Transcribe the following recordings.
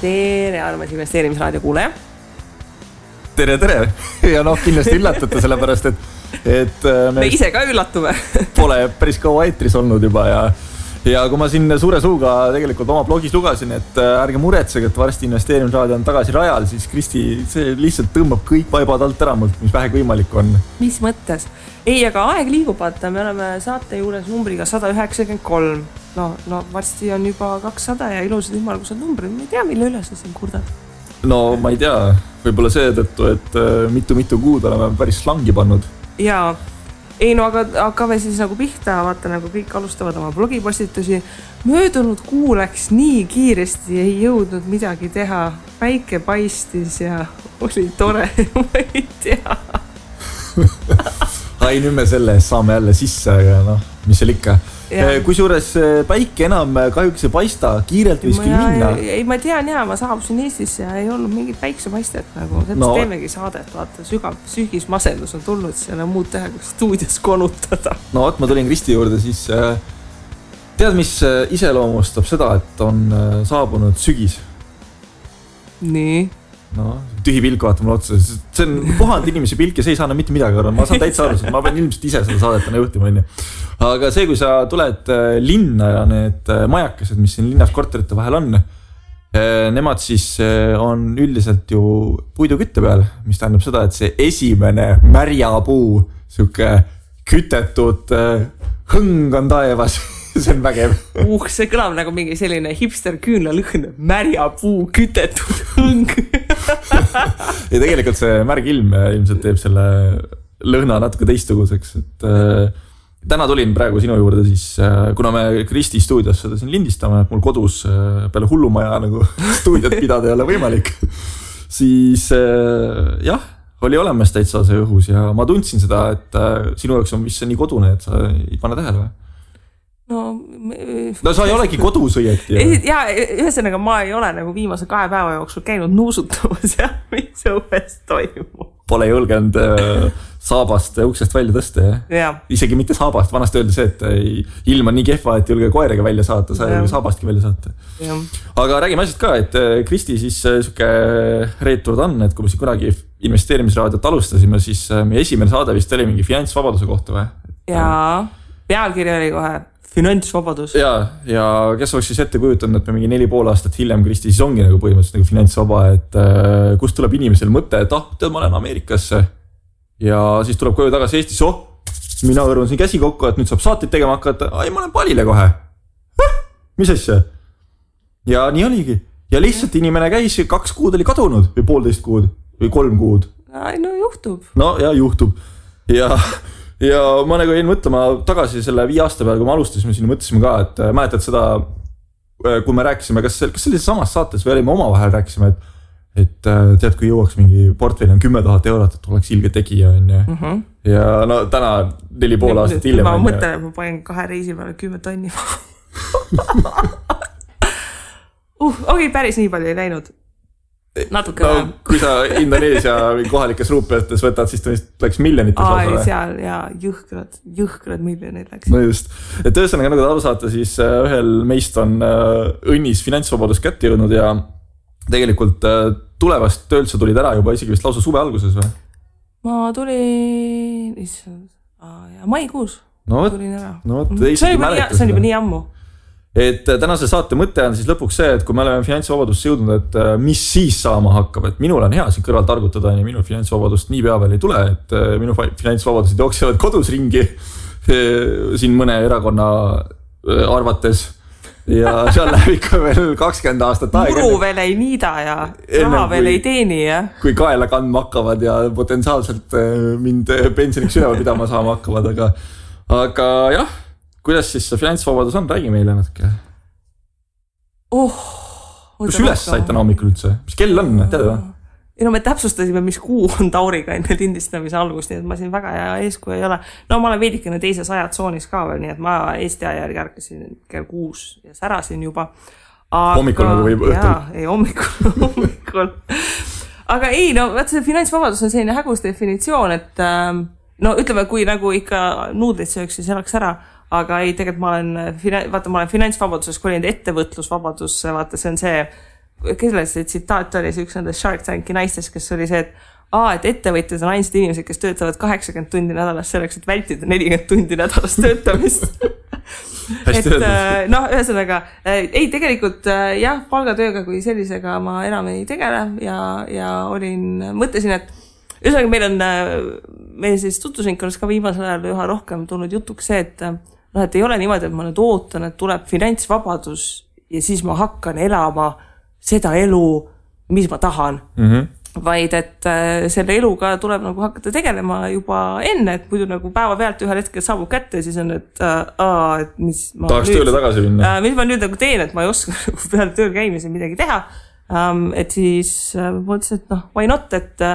tere, armas investeerimisraadio kuulaja. Tere. Ja kindlasti üllatate sellepärast, et me ise ka üllatume. Pole päris kaua eetris olnud juba ja kui ma siin suure suuga tegelikult oma blogis lugasin, et ärge muretsege, et varsti investeerimisraadio on tagasi rajal, siis Kristi see lihtsalt tõmbab kõik vaibad alt ära mult, mis vähegi võimalik on. Mis mõttes? Ei, aga aeg liigub, vaata, me oleme saate juures numbriga 193. No varsti on juba 200 ja ilusad ümmargused numbrid. Ma ei tea, mille üle sa siin kurdad. No ma ei tea, võib-olla seetõttu, et mitu kuud oleme päris slangi pannud. Jaa. Ei, no aga hakkame siis nagu pihta, vaata nagu kõik alustavad oma blogipostitusi. Möödunud kuu läks nii kiiresti, ei jõudnud midagi teha. Päike paistis ja oli tore, ma ei tea. Ai, nüüd me selle saame jälle sisse, aga mis seal ikka. Kui suures päike enam kahjuks ei paista, kiirelt võis küll minna. Ei, ma tean ma saabusin Eestisse ja ei olnud mingit päiksepaistet nagu. Sellest teemegi saadet, vaata, sügav sügismasendus on tulnud, seal on muud teha, kui stuudios konutada. No, ma tulin Kristi juurde, siis tead, mis iseloomustab seda, et on saabunud sügis? Nii? No, tühi pilk vaata mulle otsa. See on puhanud inimese pilk ja see ei saa enam mitte midagi arvata. Ma saan täitsa aru, ma pean ilmselt ise seda saadetana juhtima. Aga see, kui sa tuled linna ja need majakesed, mis siin linnas korterite vahel on, nemad siis on üldiselt ju puidukütte peal, mis tähendab seda, et see esimene märjapuu, siuke kütetud hõng on taevas. See on vägev. See kõlab nagu mingi selline hipster küünla lõhn, märjapuu, kütetud hõng. Ja tegelikult see märg ilm ilmselt teeb selle lõhna natuke teistuguseks. Täna tulin praegu sinu juurde siis, kuna me Kristi stuudios seda siin lindistame, et mul kodus peale hullumaja nagu stuudiot pidada ei ole võimalik, siis oli olemas täitsa see õhus ja ma tundsin seda, et sinu jaoks on vist see nii kodune, et sa ei pane tähele või? No sa ei olegi kodus õieti. Ja ühesõnaga ma ei ole nagu viimase 2 päeva jooksul käinud nuusutamas ja mis õues toimub. Pole julgenud saabast uksest välja tõsta, ja? Isegi mitte saabast, vanasti öeldi see, et ilm on nii kehva, et julge koeraga välja saata, sa ei saabastki välja saata. Ja. Aga räägime asjad ka, et Kristi siis suke reeturd on, et kui me siin kunagi investeerimisraadiot alustasime, siis meie esimene saade vist oli mingi finantsvabaduse kohta või? Jaa, pealkiri oli kohe finantsvabadus. Ja kes oleks siis ette kujutanud, et me mingi 4,5 aastat hiljem Kristi siis ongi nagu põhimõtteliselt nagu finantsvaba, et kust tuleb inimesel mõte, et tead, ma olen Ameerikasse ja siis tuleb koju tagasi Eestisse, mina hõrun siin käsi kokku, et nüüd saab saateid tegema hakata, ai, ma olen palile kohe. Mis asja? Ja nii oligi. Ja lihtsalt inimene käis, 2 kuud oli kadunud või 1,5 kuud või 3 kuud. No juhtub. No ja juhtub. Ja ma nagu jäin mõtlema tagasi selle 5 aasta peale, kui me alustasime siin, mõtlesime ka, et mäletad seda, kui me rääkisime, kas sellises samas saates või olime omavahel rääkisime, et tead, kui jõuaks mingi portfell on 10 000 eurot, et oleks ilge tegija. Ja no täna 4,5 aastat hiljem. Ma mõtlen, et ma panen 2 reisi peale 10 tonni. Okei, päris nii palju ei läinud. Natuke no, kui sa Indoneesia kohalikes ruupiates võtad, siis ta läks miljonites. Seal ja jõhkrad miljonid läks. No just. Et ühesõnaga, nagu te aru saate, siis ühel meist on õnnis finantsvabadus kätte jõudnud ja tegelikult tulevast töölt sa tulid ära juba isegi vist lausa suve alguses või? Ma tulin maikuus tulin ära. See on juba nii ammu. Et tänase saate mõte on siis lõpuks see, et kui me oleme finantsvabadust jõudnud, et mis siis saama hakkab, et minul on hea siin kõrval targutada ja minul finantsvabadust nii pea veel ei tule, et minu finantsvabadused jooksevad kodus ringi siin mõne erakonna arvates ja seal läheb ikka veel 20 aastat aega. Muru veel ei niida ja raha veel ei teeni. Kui kaela kandma hakkavad ja potentsiaalselt mind pensioniks üleval pidama saama hakkavad, aga jah, kuidas siis see finantsvabadus on? Räägi meile natuke. Kus üles saite hommikul üldse? Mis kell on? Tead või? No me täpsustasime, mis kuu on Tauriga enne lindistamise algust, nii et ma siin väga hea eeskuju ei ole. No ma olen veidikene teises ajatsoonis ka veel, nii et ma Eesti aja järgi ärkasin kell 6 ja särasin juba. Hommikul nagu või õhtul? Jaa, ei hommikul. Aga ei, no vaat see finantsvabadus on selline hägus definitsioon, et no ütleme, kui nagu ikka nuudlid sööks, siis elaks ära. Aga ei, tegelikult ma olen finantsvabaduses kolinud ettevõtlusvabadusse, vaata see on see kelles see tsitaat oli, see üks nendest Shark Tanki naistest, kes oli see, et ettevõtjad on ainsad inimesed, kes töötavad 80 tundi nädalas selleks, et vältida 40 tundi nädalas töötamist. Ühesõnaga, ei tegelikult jah, palgatööga kui sellisega ma enam ei tegele ja mõtlesin, et ühesõnaga meil siis tutvusringkonnas ka viimasel ajal üha rohkem tulnud jutuks see, et ei ole niimoodi, et ma nüüd ootan, et tuleb finantsvabadus ja siis ma hakkan elama seda elu, mis ma tahan. Vaid, et selle eluga tuleb nagu hakata tegelema juba enne, et muidu nagu päeva pealt ühel hetkel saabub kätte ja siis on, et mis ma tahaks tööle tagasi minna. Mis ma nüüd nagu teen, et ma ei oska peale tööl käimise midagi teha. Et siis mõtlesin, et why not, et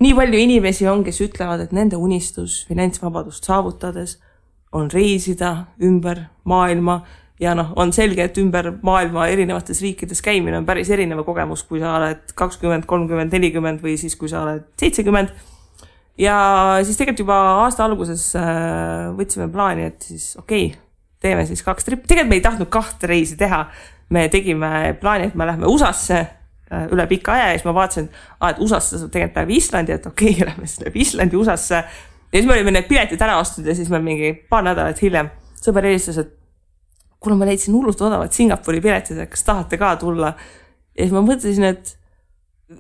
nii palju inimesi on, kes ütlevad, et nende unistus finantsvabadust saavutades on reisida ümber maailma ja on selge, et ümber maailma erinevates riikides käimine on päris erineva kogemus, kui sa oled 20, 30, 40 või siis kui sa oled 70. Ja siis tegelikult juba aasta alguses võtsime plaani, et siis teeme siis 2 trippi. Tegelikult me ei tahtnud 2 reisi teha. Me tegime plaani, et me lähme USA-sse üle pika aja ja siis ma vaatasin, et USA-sse saab tegelikult päev Islandi, et lähme siis läbi Islandi USA-sse. Ja siis me olime need piletid ära ostud ja siis me mingi paar nädalat hiljem sõber helistas, et kuna ma leidsin hullult odavad Singapuri piletid, et kas tahate ka tulla. Ja siis ma mõtlesin, et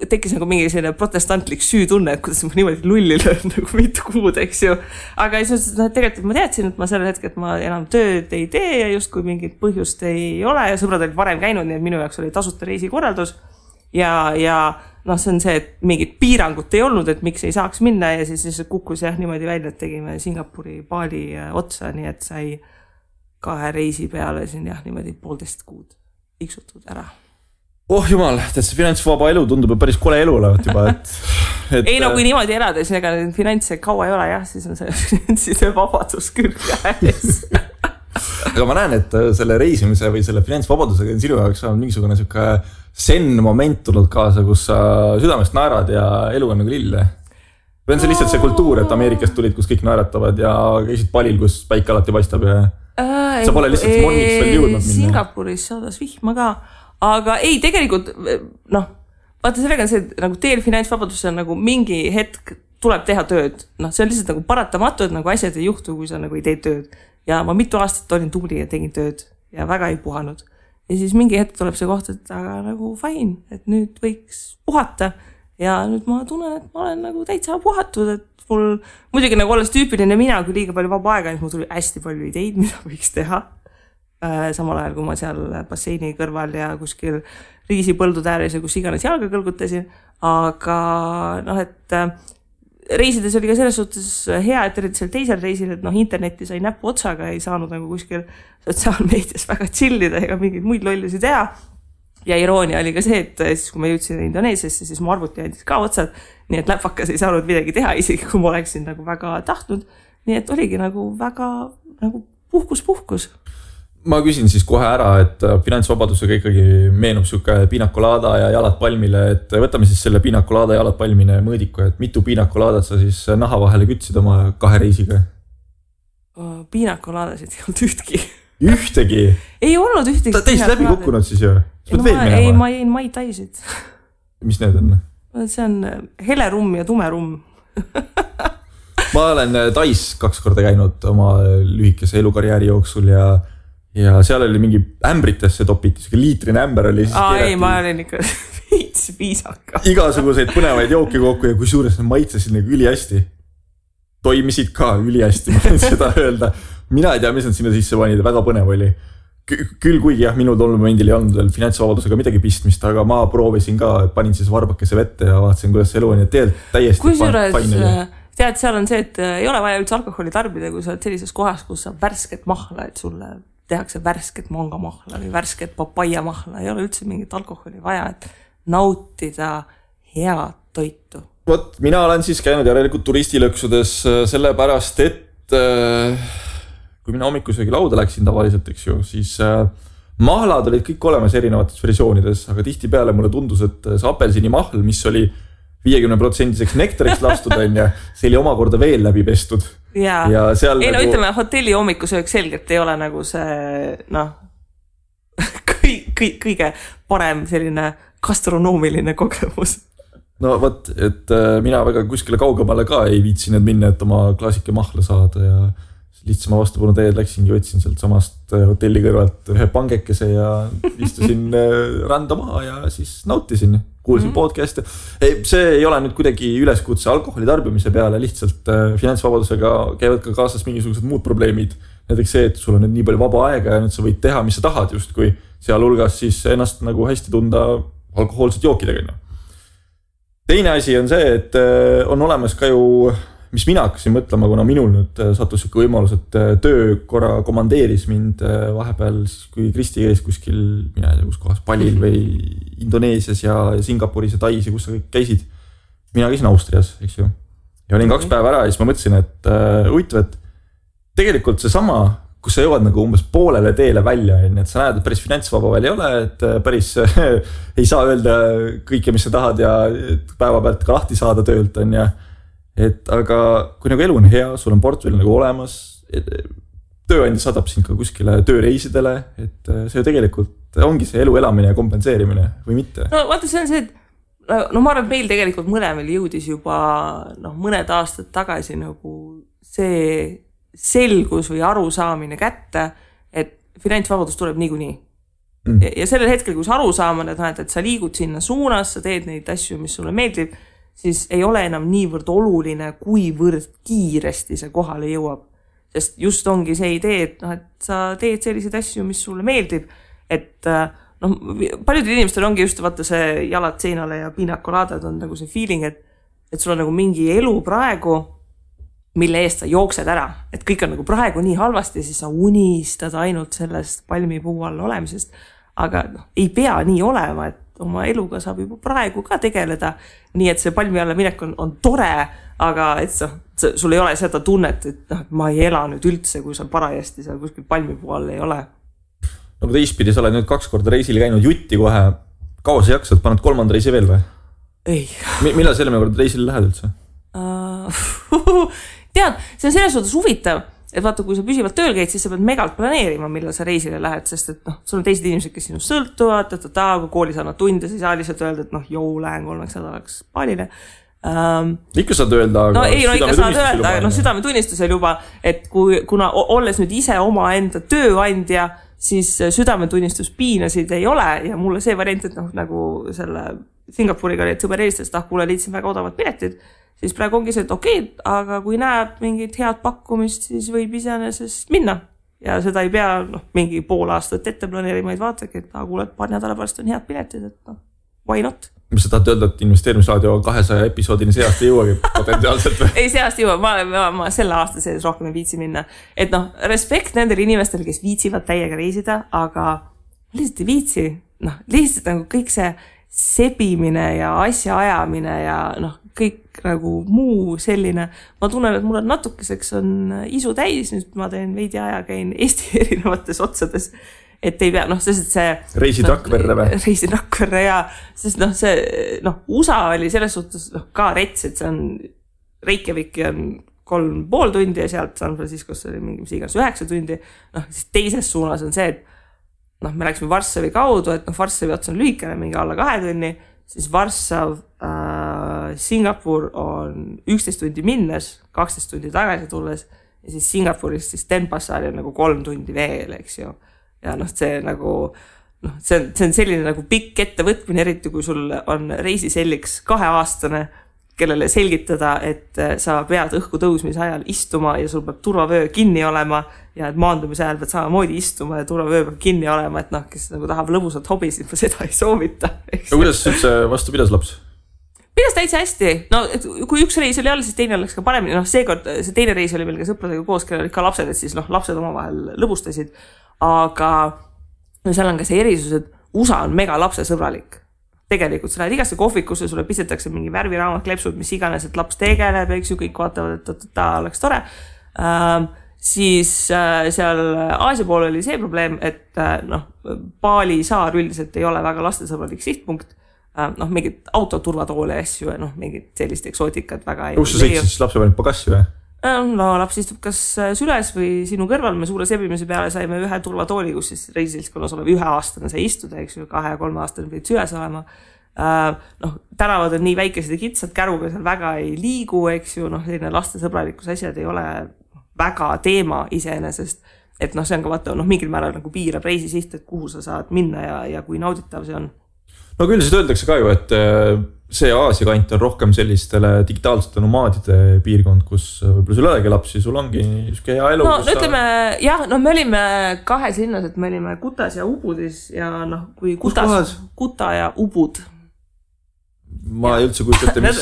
tekkis nagu mingi selline protestantlik süütunne, et kuidas ma niimoodi lulli löön nagu mitu kuud, eks ju. Aga siis tegelikult ma teadsin, et ma sellel hetkel, et ma enam tööd ei tee ja just kui mingit põhjust ei ole ja sõbrad olid varem käinud, nii et minu jaoks oli tasuta reisikorraldus. Ja see on see, et mingit piirangut ei olnud, et miks ei saaks minna ja siis kukkus niimoodi välja, et tegime Singapuri Bali otsa, nii et sai 2 reisi peale siin niimoodi 1,5 kuud iksutud ära. Jumal, see finantsvaba elu tundub päris kole elu olevat juba, et ei kui niimoodi elada, siis ega finantse kaua ei ole siis on see vabadus küll käes. Aga ma näen, et selle reisimise või selle finantsvabadusega on sinu jaoks on mingisugune siuke sen moment tulnud kaasa, kus sa südamest naerad ja elu on nagu lille. Või on see lihtsalt see kultuur, et Ameerikast tulid, kus kõik naeratavad ja käisid palil, kus päike alati paistab ja sa pole lihtsalt morniks veel jõudnud minna. Singapuris saadas vihma ka, aga ei, tegelikult, vaata sellega on see, nagu teel finantsvabadus on nagu mingi hetk tuleb teha tööd. See on lihtsalt nagu paratamatu, et nagu asjad ei juhtu, kui sa nagu ei tee tööd. Ja ma mitu aastat olin tubli ja tegin tööd ja väga ei puhanud. Ja siis mingi hetk tuleb see koht, et aga nagu fine, et nüüd võiks puhata ja nüüd ma tunnen, et ma olen nagu täitsa puhatud, et mul muidugi nagu olles tüüpiline mina, kui liiga palju vaba aega, siis mul tuli hästi palju ideid, mida võiks teha. Samal ajal, kui ma seal basseini kõrval ja kuskil riisipõldud ääres ja kus iganes jalga kõlgutasin. Aga et reisides oli ka selles suhtes hea, et eriti seal teisel reisil, et interneti sai näpu otsaga, ei saanud nagu kuskil sotsiaalmeedias väga chillida ega mingeid muid lollusi teha. Ja iroonia oli ka see, et siis kui ma jõudsin Indoneesiasse, siis mu arvuti andis ka otsad, nii et läpakas ei saanud midagi teha, isegi kui ma oleksin nagu väga tahtnud. Nii et oligi nagu väga nagu puhkus. Ma küsin siis kohe ära, et finantsvabadusega ikkagi meenub siuke piinakolada ja jalad palmile, et võtame siis selle piinakolada ja jalad palmine mõõdiku, et mitu piinakolaadat sa siis naha vahele kütsid oma 2 reisiga? Piinakoladasid ei olnud ühtki. Ühtegi? Ei olnud ühtegi. Ta teist läbi kukkunud siis ju? Ei, ma jäin Mai Taisid. Mis need on? See on hele rumm ja tume rumm. Ma olen Tais 2 korda käinud oma lühikese elukarjääri jooksul ja seal oli mingi ämbritesse topiti, liitrine ämber oli siis ei, ma olin ikka viisaka. Igasuguseid põnevaid jooki kokku ja kui suures need maitsesid nagu ülihästi. Toimisid ka ülihästi, ma võin seda öelda. Mina ei tea, mis nad sinna sisse panid, väga põnev oli. Küll kuigi minul tol momendil ei olnud veel finantsvabadusega midagi pistmist, aga ma proovisin ka, panin siis varbakese vette ja vaatasin, kuidas elu on ja täiesti kusjuures tead, seal on see, et ei ole vaja üldse alkoholi tarbida, kui sa oled sellises kohas, kus sa värsket mahla, et sulle tehakse värsket mangamahla või värsket papaiamahla, ei ole üldse mingit alkoholi vaja, et nautida head toitu. Mina olen siis käinud järelikult turistilõksudes sellepärast, et kui mina hommikusöögi lauda läksin tavaliselt, eks ju, siis mahlad olid kõik olemas erinevates versioonides, aga tihti peale mulle tundus, et see apelsini mahl, mis oli 50% nektariks lastud, see oli omakorda veel läbi pestud. Ja seal ei, ütleme, hotelli hommikusöök selgelt ei ole nagu see kõige parem selline gastronoomiline kogemus. No võt, et mina väga kuskile kaugemale ka ei viitsinud minna, et oma klaasike mahla saada ja lihtsama vastupanu teed läksingi, võtsin sealt samast hotelli kõrvalt ühe pangekese ja istusin randa maha ja siis nautisin, kuulsin podcast'e. See ei ole nüüd kuidagi üleskutse alkoholi tarbimise peale, lihtsalt finantsvabadusega käivad ka kaasas mingisugused muud probleemid. Näiteks see, et sul on nüüd nii palju vaba aega ja nüüd sa võid teha, mis sa tahad just, kui sealhulgas siis ennast nagu hästi tunda alkohoolsed jookidega. Teine asi on see, et on olemas ka ju mis mina hakkasin mõtlema, kuna minul nüüd sattus siuke võimalus, et töö korra komandeeris mind vahepeal, kui Kristi käis kuskil, mina ei tea, kus kohas, Palil või Indoneesias ja Singapuris ja Tais ja kus sa kõik käisid. Mina käisin Austrias, eks ju. Ja olin 2 päeva ära ja siis ma mõtlesin, et huvitav, et tegelikult see sama, kus sa jõuad nagu umbes poolele teele välja, et sa näed, et päris finantsvaba veel ei ole, et päris ei saa öelda kõike, mis sa tahad ja päeva pealt ka lahti saada töölt on ja et aga kui nagu elu on hea, sul on portfell nagu olemas, tööandja saadab sind ka kuskile tööreisidele, et see ju tegelikult ongi see elu elamine ja kompenseerimine või mitte. No vaata, see on see, et ma arvan, et meil tegelikult mõlemel jõudis juba mõned aastad tagasi nagu see selgus või arusaamine kätte, et finantsvabadus tuleb niikuinii. Ja sellel hetkel, kui sa aru saamad, et sa liigud sinna suunas, sa teed neid asju, mis sulle meeldib, siis ei ole enam niivõrd oluline, kuivõrd kiiresti see kohale jõuab. Sest just ongi see idee, et sa teed selliseid asju, mis sulle meeldib, et paljudel inimestel ongi just vaata see jalad seinale ja piinakolaadad on nagu see feeling, et sul on nagu mingi elu praegu, mille eest sa jooksed ära, et kõik on nagu praegu nii halvasti, siis sa unistad ainult sellest palmipuu all olemisest, aga ei pea nii olema, et oma eluga saab juba praegu ka tegeleda, nii et see palmi alla minek on tore, aga et sul ei ole seda tunnet, et ma ei ela nüüd üldse, kui sa parajasti seal kuskil palmipuu all ei ole. No kui teistpidi, sa oled nüüd 2 korda reisil käinud jutti kohe, kaua sa jaksad, paned 3. reisi veel või? Ei. Millal selle kord reisil lähed üldse? Tead, see on selles suhtes huvitav, et vaata, kui sa püsivalt tööl käid, siis sa pead megalt planeerima, millal sa reisile lähed, sest et sul on teised inimesed, kes sinust sõltuvad, kui koolis annad tunde, siis ei saa lihtsalt öelda, et lähen 3 nädalaks Palile. Ikka saad öelda, aga ikka saad öelda, aga südametunnistusel juba, et kuna olles nüüd ise oma enda tööandja, siis südametunnistus piinasid ei ole ja mulle see variant, et nagu selle Singapuriga oli, et sõber helistas, et kuule, liitsin väga odavad piletid, siis praegu ongi see, et okei, aga kui näeb mingit head pakkumist, siis võib iseenesest minna. Ja seda ei pea mingi pool aastat ette planeerima, vaid vaatagi, et kuule, paar nädala pärast on head piletid, et why not? Mis sa tahad öelda, et investeerimisraadio 200 episoodini see aasta jõuagi potentsiaalselt või? Ei, see aasta jõuab, ma selle aasta sees rohkem ei viitsi minna. Et respekt nendele inimestele, kes viitsivad täiega reisida, aga lihtsalt ei viitsi. Lihtsalt nagu kõik see sebimine ja asja ajamine ja kõik nagu muu selline. Ma tunnen, et mul on natukeseks on isu täis, nüüd ma teen veidi aja, käin Eesti erinevates otsades, et ei pea, sest see reisid Rakverre või? Reisin Rakverre ja sest see, USA oli selles suhtes ka rets, et see on Reykjaviki on 3,5 tundi ja sealt San Franciscosse oli mingi mis iganes 9 tundi, siis teises suunas on see, et me läksime Varssavi kaudu, et Varssavi ots on lühikene, mingi alla 2 tunni, siis Varssav, Singapur on 11 tundi minnes, 12 tundi tagasi tulles ja siis Singapurist siis Denpassari on nagu 3 tundi veel, eks ju. Ja see nagu, see on selline nagu pikk ettevõtmine, eriti kui sul on reisiselliks 2-aastane, kellele selgitada, et sa pead õhku tõusmise ajal istuma ja sul peab turvavöö kinni olema ja et maandumise ajal pead samamoodi istuma ja turvavöö peab kinni olema, et kes nagu tahab lõbusat hobi, siis ma seda ei soovita. Ja kuidas üldse vastu pidas laps? Pidas täitsa hästi. Kui üks reis oli all, siis teine läks ka paremini. Seekord see teine reis oli meil ka sõpradega koos, kellel olid ka lapsed, et siis lapsed omavahel lõbustasid. Aga seal on ka see erisus, et USA on mega lapsesõbralik. Tegelikult sa lähed igasse kohvikusse, sulle pistetakse mingi värviraamat, klepsud, mis iganes, et laps tegeleb, eks ju, kõik vaatavad, et ta oleks tore. Siis seal Aasia pool oli see probleem, et Bali saar üldiselt ei ole väga lastesõbralik sihtpunkt. Mingid autoturvatoole asju ja mingid sellist eksootikat väga ei. Kus sa sõitsid siis lapse panid pagassi või? Laps istub kas süles või sinu kõrval. Me suure sebimise peale saime ühe turvatooli, kus siis reisilskonnas olev 1-aastane sai istuda, eks ju, 2-3 aastane pidid süles olema. noh, tänavad on nii väikesed ja kitsad, käruga seal väga ei liigu, eks ju, noh, selline lastesõbralikus asjad ei ole väga teema iseenesest, et noh, see on ka vaata, noh, mingil määral nagu piirab reisisiht, et kuhu sa saad minna ja kui nauditav see on. No küll siis öeldakse ka ju, et see Aasia kant on rohkem sellistele digitaalsete nomaadide piirkond, kus võib-olla sul olegi lapsi, sul ongi niisugune hea elu. No ütleme, jah, no me olime kahes linnas, et me olime Kutas ja Ubudis ja noh, kui Kuta ja Ubud. Ma ei üldse kujutate, mis...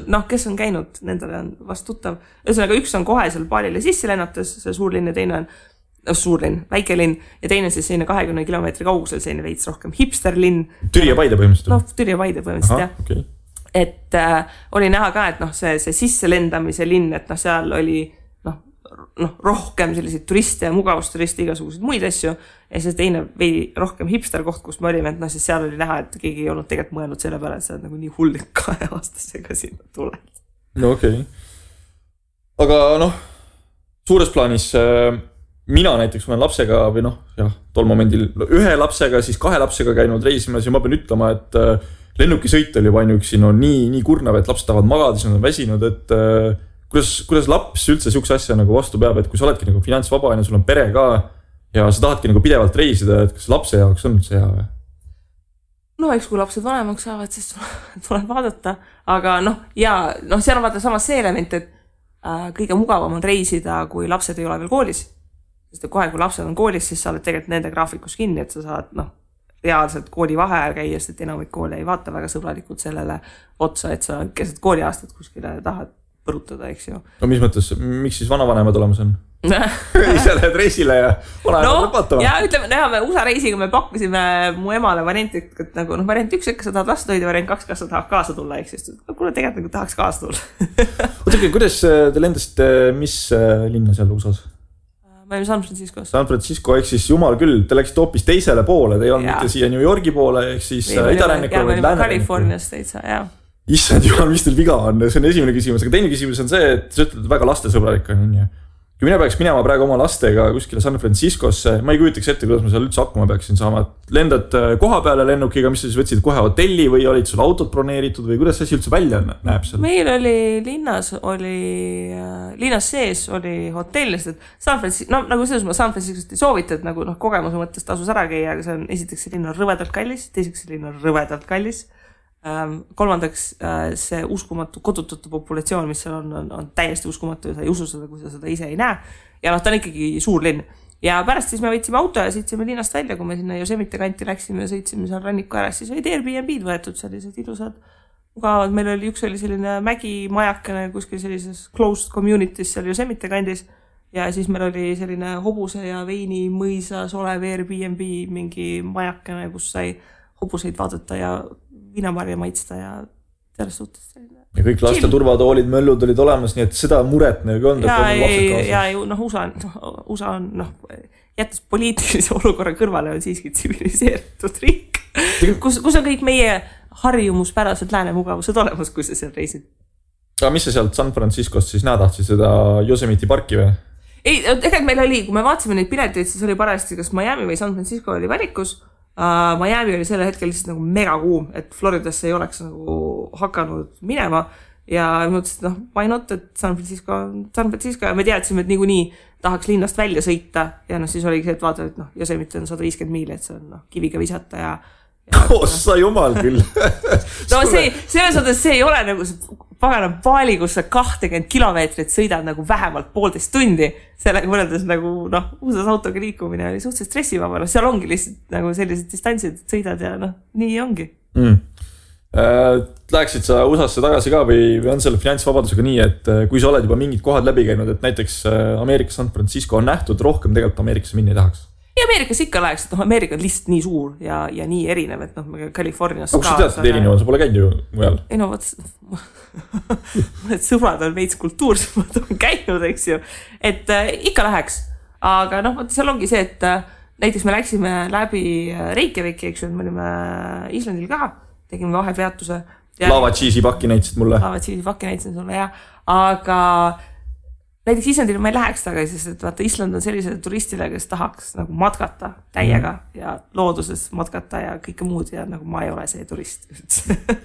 noh, kes on käinud, nendele on vast tuttav. Ühesõnaga, üks on kohe seal Balile sisse lennates, see suurlinn ja teine on suurlinn, väikelinn ja teine siis selline 20 kilomeetri kaugusel selline veits rohkem hipsterlinn. Türi ja Paide põhimõtteliselt? No, Türi ja Paide põhimõtteliselt, jah. Okay. Et oli näha ka, et noh, see sisse lendamise linn, et noh, seal oli noh, rohkem selliseid turiste ja mugavusturiste, igasuguseid muid asju ja siis teine veidi rohkem hipster koht, kus me olime, et noh, siis seal oli näha, et keegi ei olnud tegelikult mõelnud selle peale, et sa oled nagu nii hullik 2 aastasega sinna tuled. No okei. Aga noh, suures plaanis... Mina näiteks olen lapsega või noh, jah, tol momendil ühe lapsega, siis 2 lapsega käinud reisimas ja ma pean ütlema, et lennukisõit oli juba ainuüksi nii kurnav, et lapsed tahavad magada, siis nad on väsinud, et kuidas laps üldse siukse asja nagu vastu peab, et kui sa oledki nagu finantsvaba ja sul on pere ka ja sa tahadki nagu pidevalt reisida, et kas lapse jaoks on see hea või? No eks kui lapsed vanemaks saavad, siis tuleb vaadata, aga noh, ja noh, seal on vaata samas see element, et kõige mugavam on reisida, kui lapsed ei ole veel koolis. Sest kohe, kui lapsed on koolis, siis sa oled tegelikult nende graafikus kinni, et sa saad reaalselt kooli vaheajal käia, sest enamik koole ei vaata väga sõbralikult sellele otsa, et sa keset kooliaastat kuskile tahad põrutada, eks ju. No mis mõttes, miks siis vanavanemad olemas on? Ise lähed reisile ja vanavanemad vaatama. Ja ütleme, me USA reisiga me pakkusime mu emale varianti, et nagu variant 1, kas sa tahad last hoida, variant 2, kas sa tahad kaasa tulla, eks just. Kuule, tegelikult nagu tahaks kaasa tulla. Ootake, kuidas te lendasite, mis linna seal USA-s? Me olime San Franciscos. San Francisco, ehk siis jumal küll, te läksite hoopis teisele poole, te ei olnud mitte siia New Yorgi poole, ehk siis idarannikule või lääne. Californias teitsa, jah. Issand jumal, mis teil viga on, see on esimene küsimus, aga teine küsimus on see, et sa ütled väga lastesõbralik on nii. Kui mina peaks minema praegu oma lastega kuskile San Franciscosse, ma ei kujutaks ette, kuidas ma seal üldse hakkama peaksin saama. Lendad koha peale lennukiga, mis sa siis võtsid kohe hotelli või olid sul autod broneeritud või kuidas see üldse välja näeb seal? Meil oli linnas sees oli hotell, sest San Francisco, no nagu selles ma San Franciscost ei soovita, et nagu kogemuse mõttes tasus ära käia, aga see on esiteks see linn on rõvedalt kallis, teiseks see linn on rõvedalt kallis. Kolmandaks see uskumatu kodutute populatsioon, mis seal on täiesti uskumatu ja sa ei usu seda, kui sa seda ise ei näe. Ja ta on ikkagi suur linn. Ja pärast siis me võtsime auto ja sõitsime linnast välja, kui me sinna Yosemite kanti läksime ja sõitsime seal ranniku ära, siis olid Airbnb-d võetud sellised ilusad mugavad. Meil oli üks selline mägimajakene kuskil sellises closed communities seal Yosemite kandis ja siis meil oli selline hobuse ja veini mõisas olev Airbnb mingi majakene, kus sai hobuseid vaadata ja viinamarja maitsta ja selles suhtes selline. Ja kõik laste turvatoolid, möllud olid olemas, nii et seda muret nagu on. Ja USA on, jättes poliitilise olukorra kõrvale on siiski tsiviliseeritud riik, kus on kõik meie harjumuspärased läänemugavused olemas, kui sa seal reisid. Aga mis sa sealt San Franciscost siis tahtsid seda Yosemite parki või? Ei, tegelikult meil oli, kui me vaatasime neid pileteid, siis oli parajasti, kas Miami või San Francisco oli valikus. Miami oli selle hetkel lihtsalt nagu mega kuum, et Floridasse ei oleks nagu hakanud minema ja mõtlesin, et why not, et San Francisco ja me teadsime, et niikuinii tahaks linnast välja sõita ja siis oligi see, et vaata, et Yosemite on 150 miili, et see on kiviga visata ja Ossa jumal küll. No selles mõttes see ei ole nagu see pagana paali, kus sa 20 kilomeetrit sõidad nagu vähemalt 1,5 tundi. Sellega võrreldes nagu USA autoga liikumine oli suhteliselt stressivaba. Seal ongi lihtsalt nagu sellised distantsid, et sõidad ja nii ongi. Läheksid sa USA-sse tagasi ka või on selle finantsvabadusega nii, et kui sa oled juba mingid kohad läbi käinud, et näiteks Ameerika San Francisco on nähtud, rohkem tegelikult Ameerikasse minna ei tahaks? Ja Ameerikas ikka läheks, et Ameerika on lihtsalt nii suur ja nii erinev, et Californias ka. Kus sa tead, et erinev on? Sa pole käinud ju mujal? Ei mõned sõbrad on veits kultuursemad on käinud, eks ju. Et ikka läheks. Aga seal ongi see, et näiteks me läksime läbi Reykjaviki, eks ju, me olime Islandil ka, tegime vahepeatuse. Lava cheese'i pakki näitasid mulle. Lava cheese'i pakki näitasid sulle, jah. Aga näiteks Islandile ma ei läheks tagasi, sest et vaata Island on sellisele turistile, kes tahaks nagu matkata täiega ja looduses matkata ja kõike muud ja nagu ma ei ole see turist.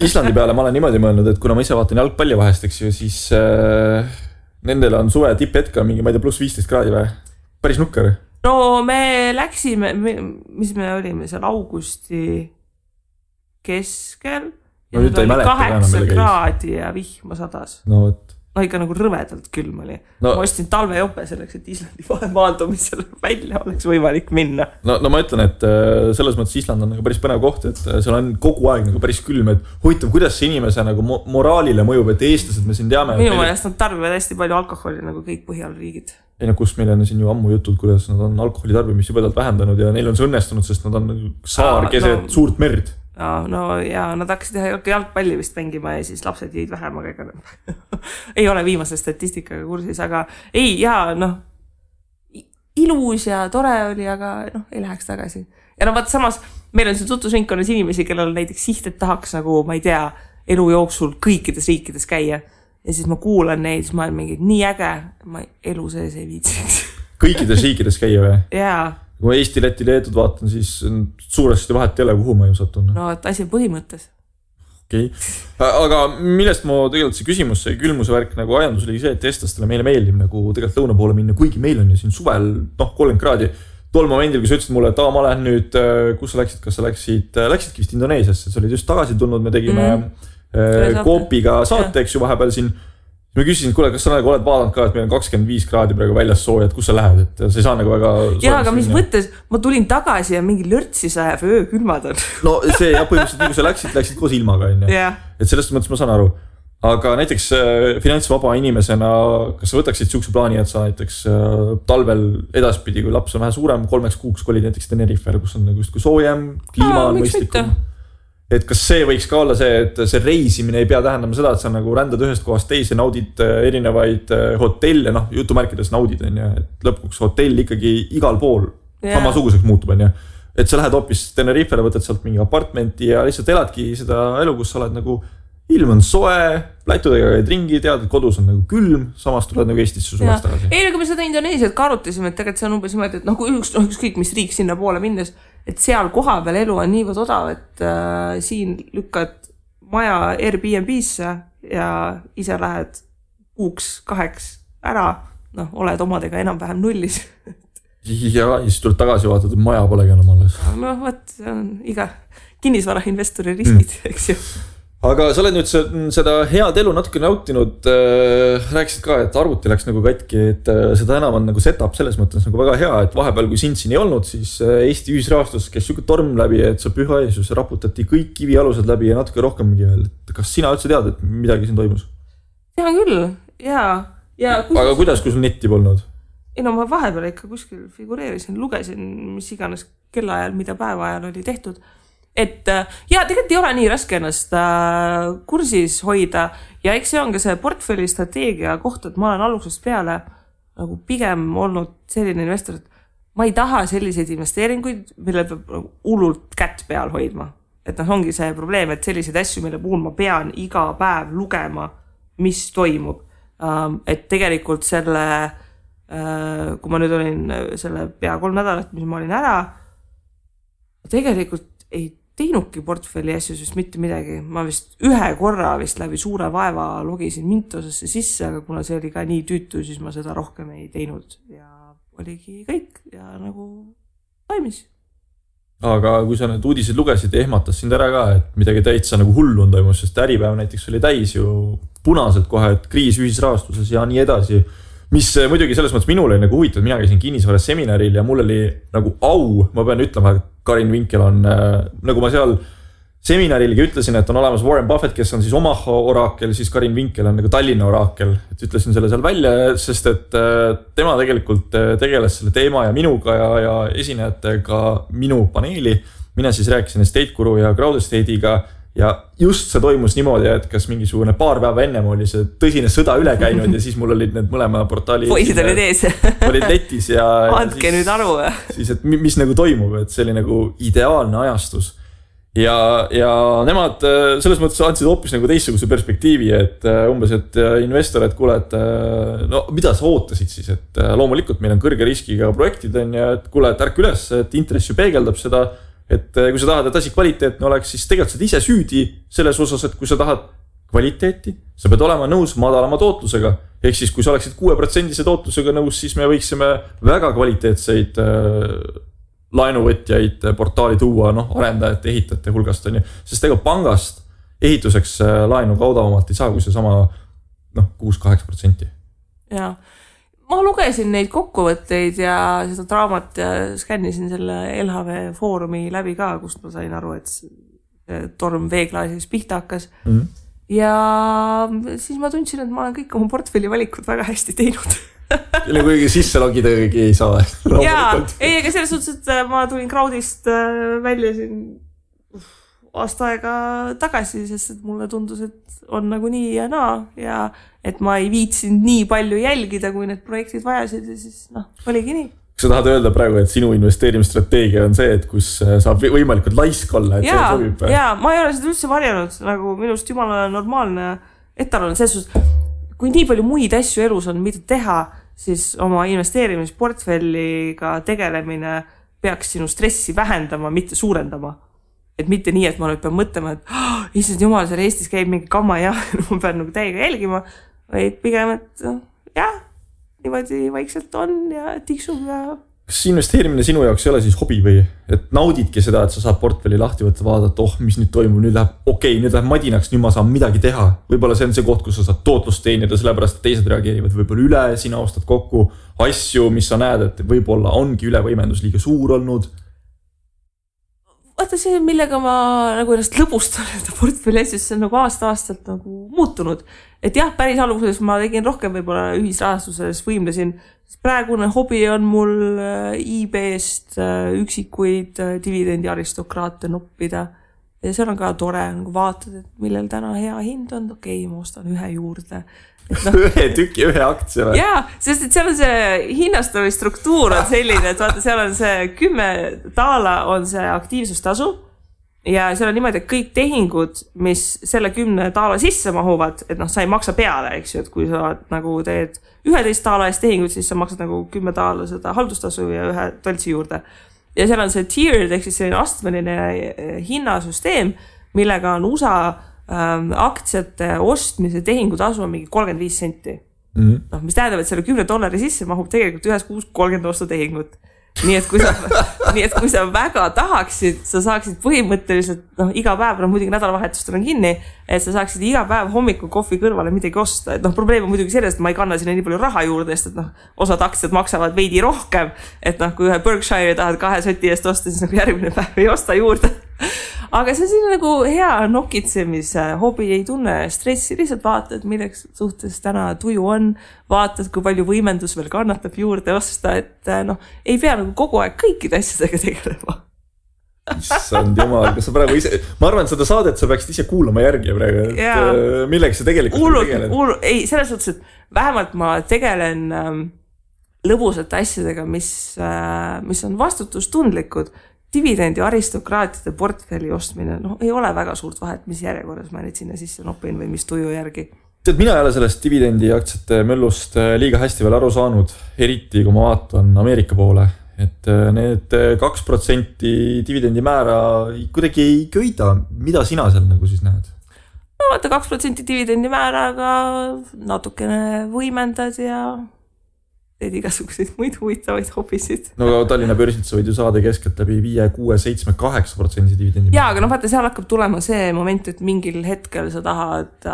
Islandi peale ma olen niimoodi mõelnud, et kuna ma ise vaatan jalgpalli vahest, eks ju, siis nendel on suve tipphetk on mingi, ma ei tea, pluss 15 kraadi või? Päris nukker. No me läksime, mis me olime seal augusti keskel ja nüüd oli 8 kraadi ja vihma sadas. No võt. No ikka nagu rõvedalt külm oli. No, ma ostin talvejope selleks, et Islandi vahemaandumisel välja oleks võimalik minna. No ma ütlen, et selles mõttes Island on nagu päris põnev koht, et seal on kogu aeg nagu päris külm, et huvitav, kuidas see inimese nagu moraalile mõjub, et eestlased me siin teame. Minu meelest nad tarbivad hästi palju alkoholi nagu kõik Põhjalriigid. Ei no kus meil on siin ju ammu jutud, kuidas nad on alkoholi tarbimist jubedalt vähendanud ja neil on see õnnestunud, sest nad on saar keset suurt merd. No ja nad hakkasid jalgpalli vist mängima ja siis lapsed jäid vähem, aga ega ei ole viimase statistikaga kursis, aga ei, jaa, ilus ja tore oli, aga ei läheks tagasi. Ja vaat samas, meil on siin tutvusringkonnas inimesi, kellel näiteks siht, et tahaks nagu, ma ei tea, elu jooksul kõikides riikides käia. Ja siis ma kuulan neid, siis ma olen mingi nii äge, ma elu sees ei viitsiks. Kõikides riikides käia või? Jaa. Kui ma Eesti, Läti, Leetud vaatan, siis suuresti vahet ei ole, kuhu ma ju satun. No, et asi põhimõttes. Okei. Aga millest ma tegelikult see küsimus, see külmuse värk nagu ajandus oli see, et eestlastele meile meeldib nagu tegelikult lõuna poole minna, kuigi meil on ju siin suvel 30 kraadi. Tol momendil, kui sa ütlesid mulle, et ma lähen nüüd, kus sa läksid, kas sa läksidki vist Indoneesiasse, sa olid just tagasi tulnud, me tegime Koopiga saate, eks ju vahepeal siin. Ma küsisin, kuule, kas sa nagu oled vaadanud ka, et meil on 25 kraadi praegu väljas sooja, et kus sa lähed, et sa ei saa nagu väga... Jaa, aga mis mõttes, ma tulin tagasi ja mingi lörtsi sajab öö külmad on. No see ja põhimõtteliselt, kui sa läksid koos ilmaga, et sellest mõttes ma saan aru. Aga näiteks finantsvaba inimesena, kas sa võtaksid siukse plaani, et sa näiteks talvel edaspidi, kui laps on vähe suurem, 3 kuuks kolid näiteks Tenerifel, kus on nagu justkui soojem, kliima on mõistlikum. Et kas see võiks ka olla see, et see reisimine ei pea tähendama seda, et sa nagu rändad ühest kohast teise, naudid erinevaid hotelle, jutumärkides naudid, et lõpuks hotell ikkagi igal pool samasuguseks muutub, et sa lähed hoopis Tenerifele, võtad sealt mingi apartmenti ja lihtsalt eladki seda elu, kus sa oled nagu ilm on soe, plätudega käid ringi, tead, et kodus on nagu külm, samas tuled nagu Eestisse suveks tagasi. Ei, kui me seda Indoneesiat ka arutasime, et tegelikult see on umbes niimoodi, et kui ükskõik mis riik sinna poole minnes, et seal koha peal elu on niivõrd odav, et siin lükkad maja Airbnb-sse ja ise lähed 6-2 ära, oled omadega enam-vähem nullis. Ja siis tuled tagasi vaatad, et maja polegi enam alles. Võt, see on iga kinnisvarainvestori riskid, eks ju. Aga sa oled nüüd seda head elu natuke nautinud, rääkisid ka, et arvuti läks nagu katki, et seda enam on nagu setup selles mõttes nagu väga hea, et vahepeal kui sind siin ei olnud, siis Eesti ühisrahastus käis siuke torm läbi, et sa püha Jeesus raputati kõik kivialused läbi ja natuke rohkemgi veel. Kas sina üldse tead, et midagi siin toimus? Tean küll, jaa. Aga kuidas, kui sul netti polnud? Ei no ma vahepeal ikka kuskil figureerisin, lugesin, mis iganes kellaajal, mida päeva ajal oli tehtud. Et tegelikult ei ole nii raske ennast kursis hoida ja eks see on ka see portfelli strateegia koht, et ma olen algusest peale nagu pigem olnud selline investor, et ma ei taha selliseid investeeringuid, mille peab hullult kätt peal hoidma. Et ongi see probleem, et selliseid asju, mille puhul ma pean iga päev lugema, mis toimub. Et tegelikult selle, kui ma nüüd olin selle pea 3 nädalat, mis ma olin ära, tegelikult ei teinudki portfelli asju, sest mitte midagi. Ma vist ühe korra vist läbi suure vaeva logisin Mintosesse sisse, aga kuna see oli ka nii tüütu, siis ma seda rohkem ei teinud ja oligi kõik ja nagu toimis. Aga kui sa need uudised lugesid, ehmatas sind ära ka, et midagi täitsa nagu hullu on toimus, sest äripäev näiteks oli täis ju punaselt kohe, et kriis ühisrahastuses ja nii edasi. Mis muidugi selles mõttes minul oli nagu huvitav, mina käisin kinnisvaras seminaril ja mul oli nagu au, ma pean ütlema, et Karin Vinkel on, nagu ma seal seminarilgi ütlesin, et on olemas Warren Buffett, kes on siis Omaha oraakel, siis Karin Vinkel on nagu Tallinna oraakel, et ütlesin selle seal välja, sest et tema tegelikult tegeles selle teema ja minuga ja esinejatega minu paneeli. Mina siis rääkisin Estate Guru ja Crowd Estate'iga ja just see toimus niimoodi, et kas mingisugune paar päeva ennem oli see tõsine sõda üle käinud ja siis mul olid need mõlema portaali poisid olid ees olid netis ja andke siis, nüüd aru siis, et mis nagu toimub, et see oli nagu ideaalne ajastus ja nemad selles mõttes andsid hoopis nagu teistsuguse perspektiivi, et umbes, et investor, et kuule, et no mida sa ootasid siis, et loomulikult meil on kõrge riskiga projektid on ja et kuule, et ärk üles, et intress ju peegeldab seda, et kui sa tahad, et asi kvaliteetne oleks, siis tegelikult sa ise süüdi selles osas, et kui sa tahad kvaliteeti, sa pead olema nõus madalama tootlusega. Ehk siis, kui sa oleksid 6% tootlusega nõus, siis me võiksime väga kvaliteetseid laenuvõtjaid portaali tuua, arendajate, ehitajate hulgast on ju. Sest ega pangast ehituseks laenu kaudavamalt ei saa, kui see sama 6-8%. Jaa. Ma lugesin neid kokkuvõtteid ja seda draamat ja skännisin selle LHV foorumi läbi ka, kust ma sain aru, et see torm veeklaasis pihta hakkas. Ja siis ma tundsin, et ma olen kõik oma portfelli valikud väga hästi teinud. Kelle kuigi sisse logida kõigi ei saa. Jaa, ei, aga selles suhtes, et ma tulin Crowdist välja siin aasta aega tagasi, sest et mulle tundus, et on nagu nii ja naa ja et ma ei viitsinud nii palju jälgida, kui need projektid vajasid ja siis oligi nii. Kas sa tahad öelda praegu, et sinu investeerimisstrateegia on see, et kus saab võimalikult laisk olla, et see sobib? Jaa, ma ei ole seda üldse varjanud, nagu minust jumala normaalne etalon, selles suhtes, kui nii palju muid asju elus on, mida teha, siis oma investeerimisportfelliga tegelemine peaks sinu stressi vähendama, mitte suurendama. Et mitte nii, et ma nüüd pean mõtlema, et issand jumal, seal Eestis käib mingi kamma ja ma pean nagu täiega jälgima, vaid pigem, et jah, niimoodi vaikselt on ja tiksub ja... Kas investeerimine sinu jaoks ei ole siis hobi või? Et naudidki seda, et sa saad portfelli lahti võtta, vaadata, mis nüüd toimub, nüüd läheb madinaks, nüüd ma saan midagi teha. Võib-olla see on see koht, kus sa saad tootlust teenida, sellepärast et teised reageerivad võib-olla üle, sina ostad kokku asju, mis sa näed, et võib-olla ongi ülevõimendus liiga suur olnud. Vaata see, millega ma nagu ennast lõbustan, et portfelli asjus, see on nagu aasta-aastalt nagu muutunud. Et jah, päris alguses ma tegin rohkem võib-olla ühisrahastuses võimlesin. Praegune hobi on mul eBayst üksikuid dividendi aristokraate noppida. Ja seal on ka tore, nagu vaatad, et millel täna hea hind on. Okei, ma ostan ühe juurde. Ühe tüki, ühe aktsia. Jaa, sest et seal on see hinnastamise struktuur on selline, et vaata, seal on see 10 taala on see aktiivsustasu ja seal on niimoodi, et kõik tehingud, mis selle 10 taala sisse mahuvad, et sa ei maksa peale, eks ju, et kui sa nagu teed 11 taala eest tehingud, siis sa maksad nagu 10 taala seda haldustasu ja ühe toltsi juurde. Ja seal on see tiered, ehk siis selline astmeline hinnasüsteem, millega on USA aktsiate ostmise tehingutasu on mingi 35 senti. Mis tähendab, et selle $10 sisse mahub tegelikult ühes kuus 30 ostutehingut. Nii et kui sa väga tahaksid, sa saaksid põhimõtteliselt iga päev, muidugi nädalavahetustel on kinni, et sa saaksid iga päev hommikul kohvi kõrvale midagi osta. Et probleem on muidugi sellest, et ma ei kanna sinna nii palju raha juurde, sest et osad aktsiad maksavad veidi rohkem, et kui ühe Berkshire tahad 2 soti eest osta, siis järgmine päev ei osta juurde. Aga see on nagu hea nokitsemise hobi, ei tunne stressi, lihtsalt vaatad, milleks suhtes täna tuju on, vaatad, kui palju võimendus veel kannatab juurde osta, et ei pea nagu kogu aeg kõikide asjadega tegelema. Issand jumal, kas sa praegu ise, ma arvan, et seda saadet sa peaksid ise kuulama järgi praegu, et milleks sa tegelikult tegeled? Ei, selles suhtes, et vähemalt ma tegelen lõbusate asjadega, mis on vastutustundlikud. Dividendi aristokraatide portfelli ostmine, ei ole väga suurt vahet, mis järjekorras ma neid sinna sisse nopin või mis tuju järgi. Tead, mina ei ole sellest dividendi aktsiate möllust liiga hästi veel aru saanud, eriti kui ma vaatan Ameerika poole, et need 2% dividendi määra kuidagi ei köida. Mida sina seal nagu siis näed? No vaata 2% dividendi määraga natukene võimendad ja teed igasuguseid muid huvitavaid hobisid. No Tallinna börsilt sa võid ju saada keskelt läbi 5, 6, 7, 8% dividendi. Jaa, aga vaata, seal hakkab tulema see moment, et mingil hetkel sa tahad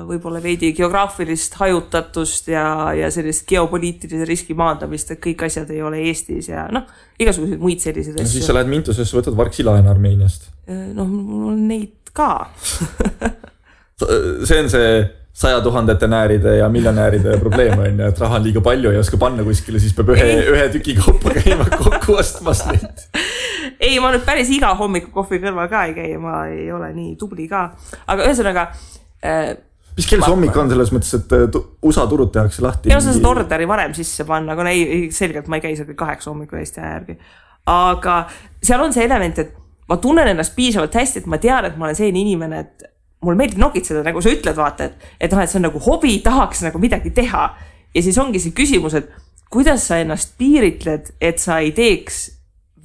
võib-olla veidi geograafilist hajutatust ja sellist geopoliitilise riski maandamist, et kõik asjad ei ole Eestis ja igasuguseid muid selliseid asju. Siis sa lähed Mintusesse, võtad varksi laen Armeeniast. Mul on neid ka. See on see 100 000 nääride ja miljonääride probleem on, et raha on liiga palju ja oska panna kuskile, siis peab ühe tüki kaupa käima kokku ostmas neid. Ei, ma nüüd päris iga hommiku kohvi kõrval ka ei käi, ma ei ole nii tubli ka. Aga ühesõnaga... Mis kell see hommik on selles mõttes, et USA turud tehakse lahti? Ja sa saad orderi varem sisse panna, aga selgelt ma ei käi seal 8 hommikul Eesti järgi. Aga seal on see element, et ma tunnen ennast piisavalt hästi, et ma tean, et ma olen selline inimene, et mul meeldib nokitseda, nagu sa ütled, vaata, et see on nagu hobi, tahaks nagu midagi teha. Ja siis ongi see küsimus, et kuidas sa ennast piiritled, et sa ei teeks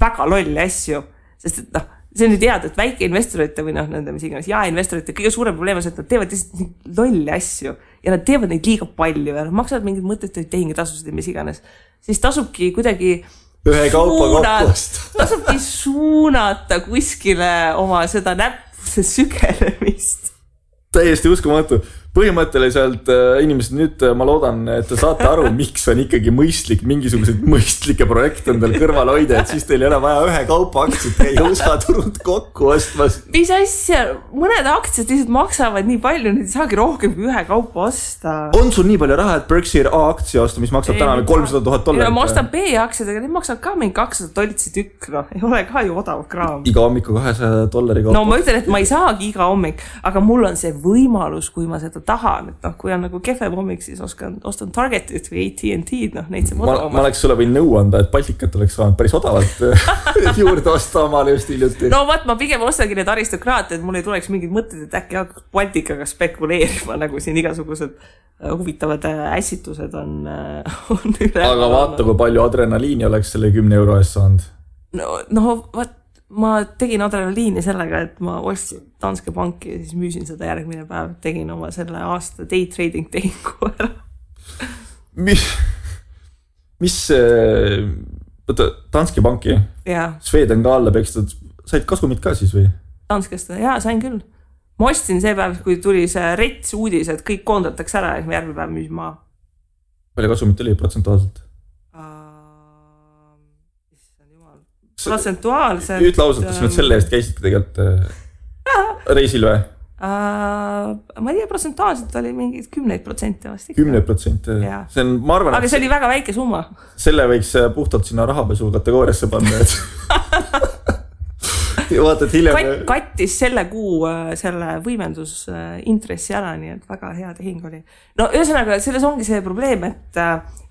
väga lolli asju. Sest et see on nüüd teada, et väike investorite või nende mis iganes investorite kõige suurem probleem on see, et nad teevad lihtsalt lolli asju ja nad teevad neid liiga palju ja nad maksavad mingid mõttetuid tehingitasusid ja mis iganes. Siis tasubki kuidagi ühe kaupa kokkust. Tasubki suunata kuskile oma seda näppuse sügelemist. Täiesti uskumatu. Põhimõtteliselt inimesed nüüd ma loodan, et te saate aru, miks on ikkagi mõistlik mingisuguseid mõistlikke projekte endal kõrval hoida, et siis teil ei ole vaja ühe kaupa aktsiat käia USA turult kokku ostmas. Mis asja? Mõned aktsiad lihtsalt maksavad nii palju, nüüd ei saagi rohkem kui ühe kaupa osta. On sul nii palju raha, et Berkshire A aktsia osta, mis maksab täna $300,000? Ma ostan B aktsiad, aga need maksavad ka mingi $200 tükk. Ei ole ka ju odav kraam. Iga hommiku $200 kaupa. No ma ütlen, et ma ei saagi iga hommik, aga mul on see võimalus, kui ma seda tahan, et kui on nagu kefem hommik, siis ostan Targetit või AT&T, neid see ma oleks sulle võin nõu anda, et Baltikat oleks saanud päris odavalt juurde osta omale just hiljuti. No vaat, ma pigem ostangi need aristokraate, et mul ei tuleks mingid mõtted, et äkki hakkaks Baltikaga spekuleerima, nagu siin igasugused huvitavad ässitused on üle. Aga vaata, kui palju adrenaliini oleks selle 10 euro eest saanud. No vaat, ma tegin adrenaliini sellega, et ma ostsin Danske Banki ja siis müüsin seda järgmine päev. Tegin oma selle aasta day trading tehingu ära. Mis Danske Banki? Sweden ka alla pekstud. Said kasumit ka siis või? Danskest, sain küll. Ma ostsin see päev, kui tuli see rets uudis, et kõik koondatakse ära ja järgmine päev müüsin maha. Palju kasumit oli protsentuaalselt? Protsentuaalselt. Ütle ausalt, kas nüüd selle eest käisidki tegelikult reisil või? Ma ei tea, protsentuaalselt oli mingid 10% vast. 10%? See on, ma arvan, aga see oli väga väike summa. Selle võiks puhtalt sinna rahapesu kategooriasse panna. Vaata, et hiljem... Kattis selle kuu selle võimendus intressi ära, nii et väga hea tehing oli. No ühesõnaga, selles ongi see probleem, et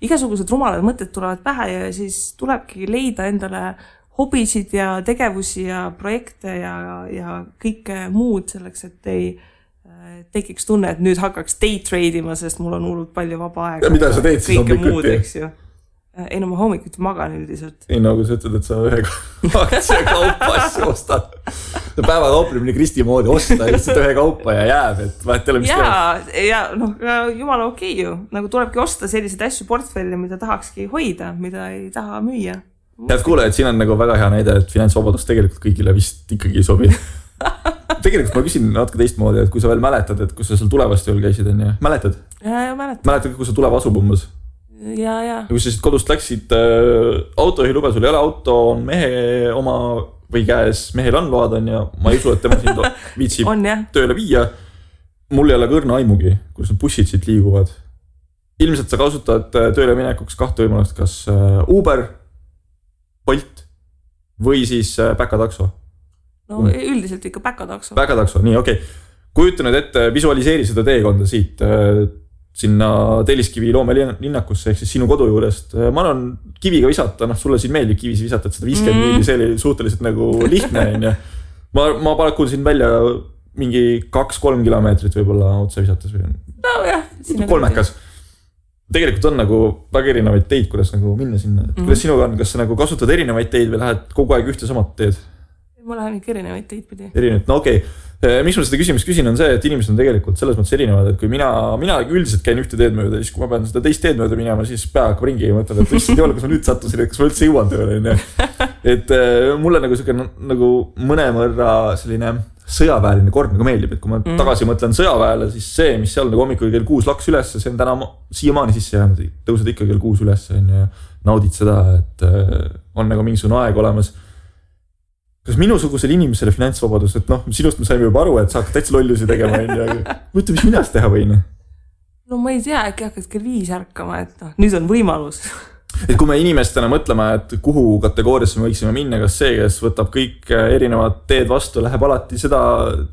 igasugused rumalad mõtted tulevad pähe ja siis tulebki leida endale hobisid ja tegevusi ja projekte ja kõike muud selleks, et ei tekiks tunne, et nüüd hakkaks day trade'ima, sest mul on hullult palju vaba aega. Ja mida sa teed siis hommikuti? Ei, no ma hommikuti magan üldiselt. Ei, nagu sa ütled, et sa ühe aktsia kaupa asju ostad. Päeva kauplemine Kristi moodi osta lihtsalt ühe kaupa ja jääb, et vahet ei ole mis teeb. Ja jumala okei ju. Nagu tulebki osta selliseid asju portfelli, mida tahakski hoida, mida ei taha müüa. Head kuulajad, siin on nagu väga hea näide, et finantsvabadus tegelikult kõigile vist ikkagi ei sobi. Tegelikult ma küsin natuke teistmoodi, et kui sa veel mäletad, et kus sa seal tulevast jõul käisid, on ju? Mäletad? Ja mäletad. Mäletad, kus sa tuleb asub umbes? Ja. Kui sa siis kodust läksid autojuhilube, sul ei ole auto, on mehe oma või käes, mehel on load on ja ma ei usu, et tema siin viitsib tööle viia. Mul ei ole kõrna aimugi, kus need bussid siit liiguvad. Ilmselt sa kasutad tööle minekuks kahte võimalust, kas Uber, Bolt või siis päkatakso. No üldiselt ikka päkatakso. Päkatakso, nii okei. Kujuta nüüd ette, visualiseeri seda teekonda siit sinna Telliskivi loomelinnakusse ehk siis sinu kodu juurest. Ma arvan, kiviga visata, sulle siin meeldib kivisi visata, et 150 miili, see oli suhteliselt nagu lihtne. Ma pakun siin välja mingi 2-3 kilomeetrit võib-olla otse visates. No jah. Kolmekas. Tegelikult on nagu väga erinevaid teid, kuidas nagu minna sinna. Kuidas sinuga on, kas sa nagu kasutad erinevaid teid või lähed kogu aeg ühte samat teed? Ma lähen ikka erinevaid teid pidi. Erinevaid, no okei. Miks ma seda küsimust küsin on see, et inimesed on tegelikult selles mõttes erinevad, et kui mina üldiselt käin ühte teed mööda, siis kui ma pean seda teist teed mööda minema, siis pea hakkab ringi ja mõtled, et issand juhul, kas ma nüüd sattusin, et kas ma üldse jõuan tööle. Et mulle nagu selline nagu mõnemõrra selline sõjaväeline kord nagu meeldib, et kui ma tagasi mõtlen sõjaväele, siis see, mis seal nagu hommikul kell 6 laks üles, see on täna siiamaani sisse jäänud, tõused ikka kell 6 üles ja naudid seda, et on nagu mingisugune aeg olemas. Kas minusugusel inimesele finantsvabadus, et sinust me saime juba aru, et sa hakkad täitsa lollusi tegema, mõtle, mis minast teha võin? No ma ei tea, äkki hakkad kell 5 ärkama, et nüüd on võimalus. Et kui me inimestena mõtleme, et kuhu kategooriasse me võiksime minna, kas see, kes võtab kõik erinevad teed vastu, läheb alati seda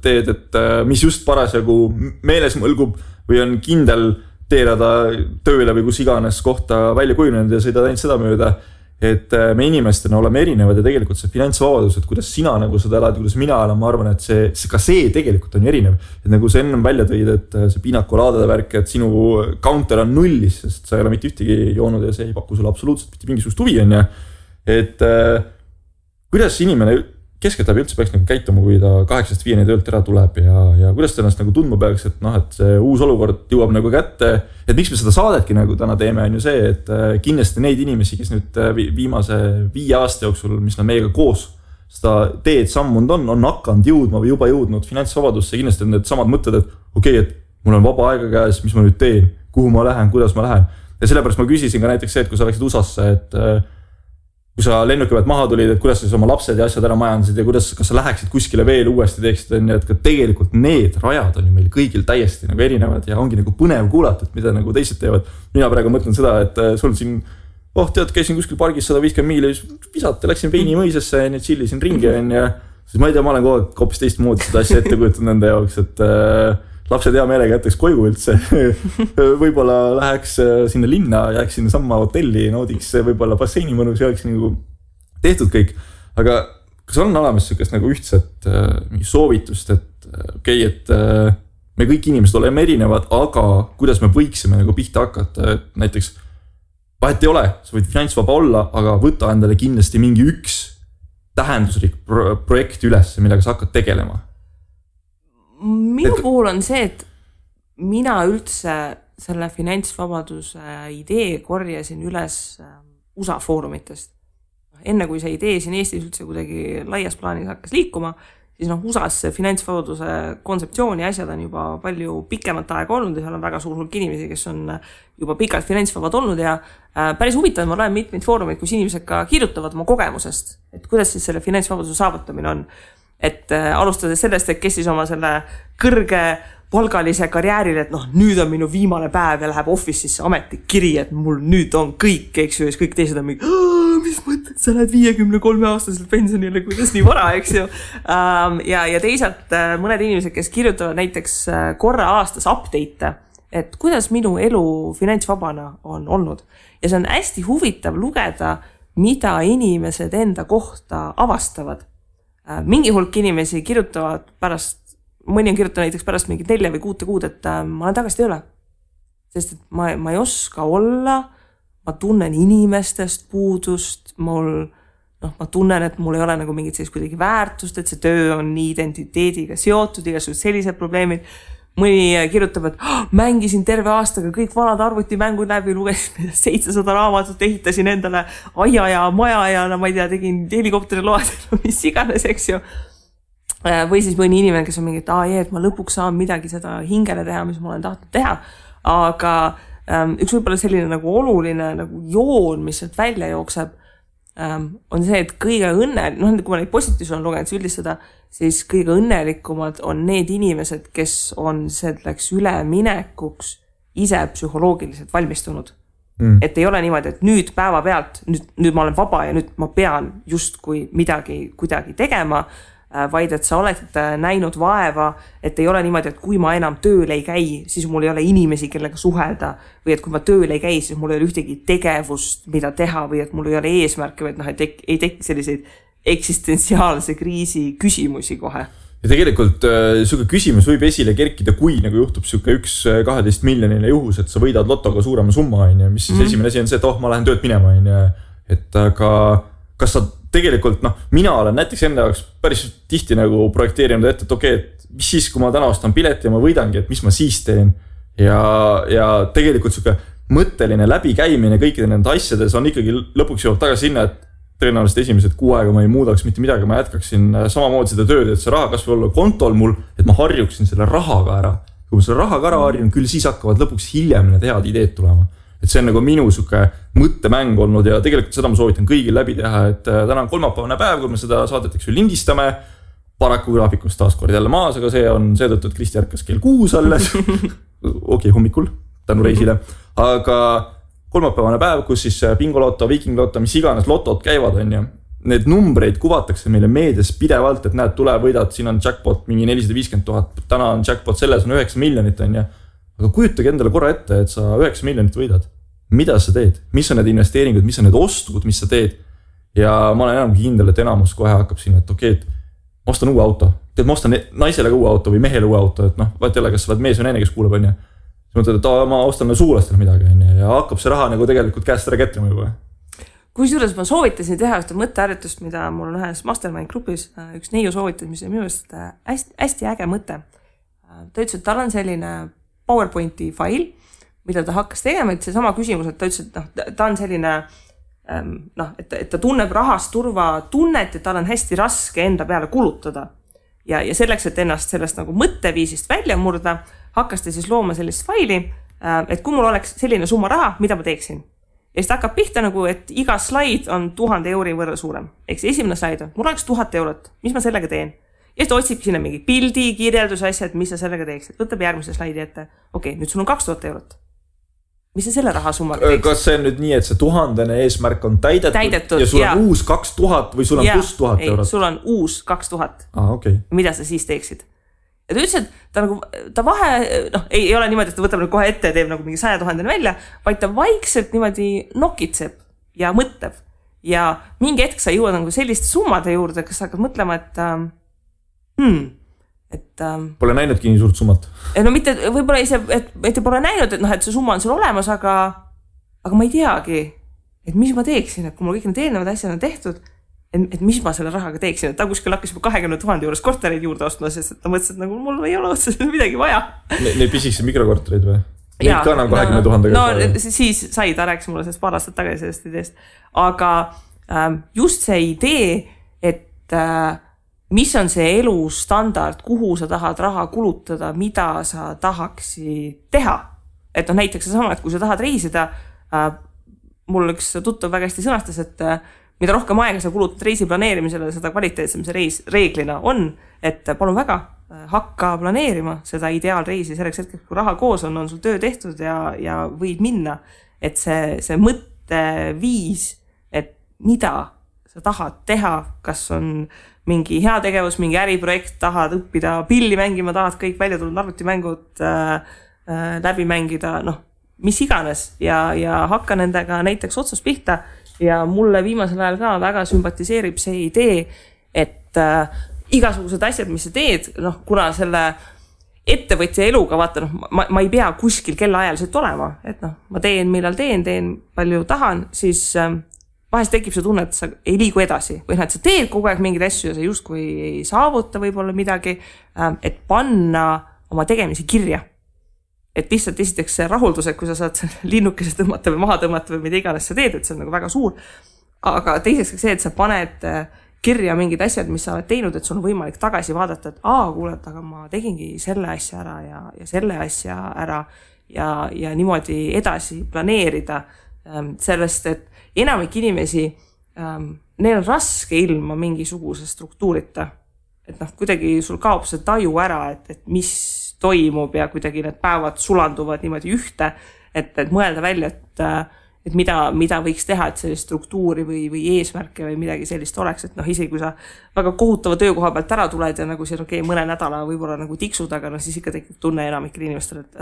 teed, et mis just parasjagu meeles mõlgub või on kindel teerada tööle või kus iganes kohta välja kujunenud ja sõidad ainult seda mööda. et me inimestena oleme erinevad ja tegelikult see finantsvabadus, et kuidas sina nagu seda elad, kuidas mina elan, ma arvan, et ka see tegelikult on ju erinev. Et nagu sa ennem välja tõid, et see pinakolaadade värk, et sinu counter on nullis, sest sa ei ole mitte ühtegi joonud ja see ei paku sulle absoluutselt mitte mingisugust huvi, on ju. Et kuidas inimene keskeltläbi üldse peaks nagu käituma, kui ta 8-5 töölt ära tuleb ja kuidas ta ennast nagu tundma peaks, et et see uus olukord jõuab nagu kätte, et miks me seda saadetki nagu täna teeme, on ju see, et kindlasti neid inimesi, kes nüüd viimase 5 aasta jooksul, mis nad meiega koos seda teed sammunud on hakanud jõudma või juba jõudnud finantsvabadusse, kindlasti on need samad mõtted, et okei, et mul on vaba aega käes, mis ma nüüd teen, kuhu ma lähen, kuidas ma lähen. Ja sellepärast ma küsisin ka näiteks see, et kui sa läksid USA-sse, et kui sa lennuki pealt maha tulid, et kuidas sa oma lapsed ja asjad ära majandasid ja kas sa läheksid kuskile veel uuesti teeksid, et ka tegelikult need rajad on ju meil kõigil täiesti nagu erinevad ja ongi nagu põnev kuulata, et mida nagu teised teevad. Mina praegu mõtlen seda, et sul siin, tead, käisin kuskil pargis 150 miili, visata, läksin Veini mõisasse ja chillisin ringi ja siis ma ei tea, ma olen hoopis teistmoodi seda asja ette kujutanud nende jaoks, et lapsed hea meelega jätaks koju üldse. Võib-olla läheks sinna linna, jääks sinna samma hotelli, naudiks võib-olla basseini mõnus ja oleks nagu tehtud kõik. Aga kas on olemas sellist nagu ühtset soovitust, et okei, et me kõik inimesed oleme erinevad, aga kuidas me võiksime nagu pihta hakata, et näiteks vahet ei ole, sa võid finantsvaba olla, aga võta endale kindlasti mingi üks tähenduslik projekt üles, millega sa hakkad tegelema. Minu puhul on see, et mina üldse selle finantsvabaduse idee korjasin üles USA foorumitest. Enne kui see idee siin Eestis üldse kuidagi laias plaanis hakkas liikuma, siis USA's see finantsvabaduse kontseptsioon ja asjad on juba palju pikemat aega olnud ja seal on väga suur hulk inimesi, kes on juba pikalt finantsvabad olnud ja päris huvitav, ma loen mitmeid foorumeid, kus inimesed ka kirjutavad oma kogemusest, et kuidas siis selle finantsvabaduse saavutamine on. Et alustades sellest, et kes siis oma selle kõrge palgalise karjääril, et nüüd on minu viimane päev ja läheb office'isse ametlik kiri, et mul nüüd on kõik, eks ju, ja kõik teised on mingi, mis mõtled, sa lähed 53-aastaselt pensionile, kuidas nii vara, eks ju. Ja teisalt mõned inimesed, kes kirjutavad näiteks korra aastas update'e, et kuidas minu elu finantsvabana on olnud. Ja see on hästi huvitav lugeda, mida inimesed enda kohta avastavad. Mingi hulk inimesi kirjutavad pärast, mõni on kirjutanud näiteks pärast mingi 4 või 6 kuud, et ma olen tagasi tööle. Sest et ma ei oska olla, ma tunnen inimestest puudust, ma tunnen, et mul ei ole nagu mingit sellist kuidagi väärtust, et see töö on nii identiteediga seotud, igasugused sellised probleemid. Mõni kirjutab, et mängisin terve aastaga kõik vanad arvutimängud läbi, lugesin 700 raamatut, ehitasin endale aia ja maja ja ma ei tea, tegin helikopteri load, mis iganes, eks ju. Või siis mõni inimene, kes on mingi, et ma lõpuks saan midagi seda hingele teha, mis ma olen tahtnud teha. Aga üks võib-olla selline nagu oluline nagu joon, mis sealt välja jookseb, on see, et kõige kui ma neid positiivse on lugenud üldistada, siis kõige õnnelikumad on need inimesed, kes on selleks üleminekuks ise psühholoogiliselt valmistunud. Et ei ole niimoodi, et nüüd päeva pealt, nüüd ma olen vaba ja nüüd ma pean justkui midagi kuidagi tegema, vaid et sa oled näinud vaeva, et ei ole niimoodi, et kui ma enam tööl ei käi, siis mul ei ole inimesi, kellega suhelda, või et kui ma tööl ei käi, siis mul ei ole ühtegi tegevust, mida teha, või et mul ei ole eesmärke, või et ei teki selliseid eksistentsiaalse kriisi küsimusi kohe. Ja tegelikult suke küsimus võib esile kerkida, kui nagu juhtub suke 1-12 miljonile juhus, et sa võidad lotoga suurema summa, mis siis esimene asi on see, et ma lähen tööd minema, et aga kas sa tegelikult, mina olen näiteks enda jaoks päris tihti nagu projekteerinud ette, et okei, et mis siis, kui ma täna ostan pileti ja ma võidangi, et mis ma siis teen ja tegelikult suke mõtteline läbikäimine kõikide nende asjades on ikkagi lõpuks jõuab tagasi sinna, et tõenäoliselt esimesed 6 aega ma ei muudaks mitte midagi, ma jätkaksin samamoodi seda tööd, et see raha kas või olla kontol mul, et ma harjuksin selle rahaga ära. Kui ma selle rahaga ära harjun, küll siis hakkavad lõpuks hiljem need head ideed tulema. Et see on nagu minu suke mõttemäng olnud ja tegelikult seda ma soovitan kõigil läbi teha, et täna on kolmapäevane päev, kui me seda saadeteks lindistame, paraku graafikust taas kord jälle maas, aga see on seetõttu, et Kristi ärkas kell 6 alles, okei, hommikul, tänu reisile, aga kolmapäevane päev, kus siis bingoloto, viikingloto, mis iganes lotod käivad, on ja need numbreid kuvatakse meile meedias pidevalt, et näed, tule võidad, siin on jackpot mingi 450 000, täna on jackpot, selles on 9 miljonit, on ja aga kujutage endale korra ette, et sa 9 miljonit võidad. mida sa teed, mis on need investeeringud, mis on need ostud, mis sa teed. Ja ma olen enam kindel, et enamus kohe hakkab siin, et okei, et ma ostan uue auto. Tead, ma ostan naisele uue auto või mehele uue auto, et noh, vaat jälle, kas sa oled mees või naine, kes kuuleb, on ju. Siis mõtled, et ma ostan suulastele midagi, on ju, ja hakkab see raha nagu tegelikult käest ära kätrima juba. Kusjuures ma soovitasin teha ühte mõtteharjutust, mida mul on ühes mastermind grupis, üks neiu soovitas, mis on minu arust hästi äge mõte. Ta ütles, et tal on selline PowerPointi fail, mida ta hakkas tegema, et see sama küsimus, et ta ütles, et ta on selline, et ta tunneb rahast turva tunnet, et tal on hästi raske enda peale kulutada. Ja selleks, et ennast sellest nagu mõtteviisist välja murda, hakkas ta siis looma sellist faili, et kui mul oleks selline summa raha, mida ma teeksin. Ja siis ta hakkab pihta nagu, et iga slaid on 1000 euri võrra suurem. Eks esimene slaid on, mul oleks 1000 eurot, mis ma sellega teen? Ja siis ta otsib sinna mingi pildi, kirjelduse asja, et mis sa sellega teeksid. Võtab järgmise slaidi ette. Okei, nüüd sul on 2000 eurot. Mis sa selle rahasummaga teeksid? Kas see on nüüd nii, et see 1000 eesmärk on täidetud ja sul on uus 2000 või sul on plus 1000 eurot? Sul on uus 2000. Okay. Mida sa siis teeksid? Ja ta ütles, et ta vahe, ei ole niimoodi, et ta võtab kohe ette ja teeb nagu mingi 100 000 välja, vaid ta vaikselt niimoodi nokitseb ja mõtleb. Ja mingi hetk sa jõuad nagu selliste summade juurde, kas sa hakkad mõtlema, et pole näinudki nii suurt summat. No mitte, võib-olla ise, et pole näinud, et see summa on sul olemas, aga ma ei teagi, et mis ma teeksin, et kui mul kõik need eelnevad asjad on tehtud, et mis ma selle rahaga teeksin, et ta kuskil hakkas juba 20 000 juures kortereid juurde ostma, sest ta mõtles, et nagu mul ei ole otseselt midagi vaja. Neid pisikse mikrokortereid või? Neid ka enam 20 000. No siis sai, ta rääkis mulle sellest paar aastat tagasi sellest ideest. Aga just see idee, et mis on see elustandard, kuhu sa tahad raha kulutada, mida sa tahaksid teha. Et näiteks sama, et kui sa tahad reisida, mul üks tuttav väga hästi sõnastas, et mida rohkem aega sa kulutad reisi planeerimisele, seda kvaliteetsem see reis reeglina on, et palun väga, hakka planeerima seda ideaalreisi selleks hetkeks, kui raha koos on sul töö tehtud ja võid minna. Et see mõtteviis, et mida sa tahad teha, kas on mingi heategevus, mingi äriprojekt, tahad õppida pilli mängima, tahad kõik välja tulnud arvutimängud läbi mängida, mis iganes ja hakka nendega näiteks otsast pihta. Ja mulle viimasel ajal ka väga sümpatiseerib see idee, et igasugused asjad, mis sa teed, kuna selle ettevõtja eluga, vaata, ma ei pea kuskil kellaajaliselt olema, et ma teen, millal teen palju tahan, siis vahest tekib see tunne, et sa ei liigu edasi või et sa teed kogu aeg mingeid asju ja sa justkui ei saavuta võib-olla midagi, et panna oma tegemisi kirja. Et lihtsalt esiteks see rahuldus, et kui sa saad linnukese tõmmata või maha tõmmata või mida iganes sa teed, et see on nagu väga suur. Aga teiseks see, et sa paned kirja mingid asjad, mis sa oled teinud, et sul on võimalik tagasi vaadata, et kuuled, aga ma tegingi selle asja ära ja selle asja ära ja niimoodi edasi planeerida sellest, et enamik inimesi, neil on raske ilma mingisuguse struktuurita. Et kuidagi sul kaob see taju ära, et mis toimub ja kuidagi need päevad sulanduvad niimoodi ühte, et mõelda välja, et mida võiks teha, et sellist struktuuri või eesmärke või midagi sellist oleks, et isegi kui sa väga kohutava töökoha pealt ära tuled ja nagu siin mõne nädala võib-olla nagu tiksud, aga siis ikka tekib tunne enamikel inimestel, et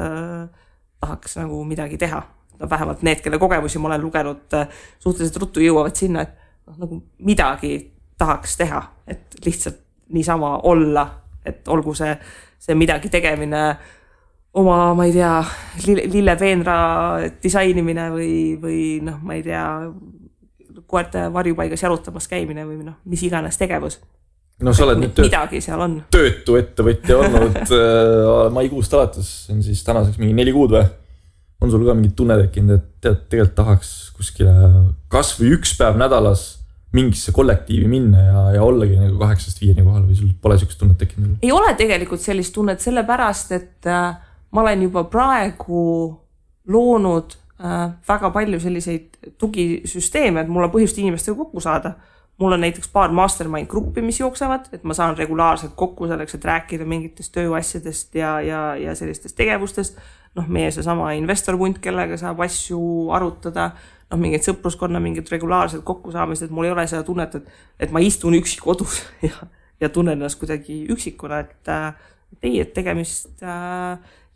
tahaks nagu midagi teha. Vähemalt need, kelle kogemusi ma olen lugenud, suhteliselt ruttu jõuavad sinna, et nagu midagi tahaks teha, et lihtsalt niisama olla, et olgu see midagi tegemine oma, ma ei tea, lillepeenra disainimine või ma ei tea, koerte varjupaigas jalutamas käimine või mis iganes tegevus. Sa oled nüüd midagi seal on. Töötu ettevõtja olnud maikuust alates, on siis tänaseks mingi 4 kuud või? On sul ka mingi tunne tekkinud, et tegelikult tahaks kuskile kas või 1 päev nädalas mingisse kollektiivi minna ja ollagi nagu 8-5 kohal või sul pole sellist tunnet tekkinud? Ei ole tegelikult sellist tunnet sellepärast, et ma olen juba praegu loonud väga palju selliseid tugisüsteeme, et mul on põhjust inimestega kokku saada. Mul on näiteks paar mastermind gruppi, mis jooksevad, et ma saan regulaarselt kokku selleks, et rääkida mingitest tööasjadest ja sellistest tegevustest. Meie see sama investorpunt, kellega saab asju arutada, mingid sõpruskonna, mingid regulaarselt kokkusaamised, et mul ei ole seda tunnet, et ma istun üksi kodus ja tunnen ennast kuidagi üksikuna, et tegemist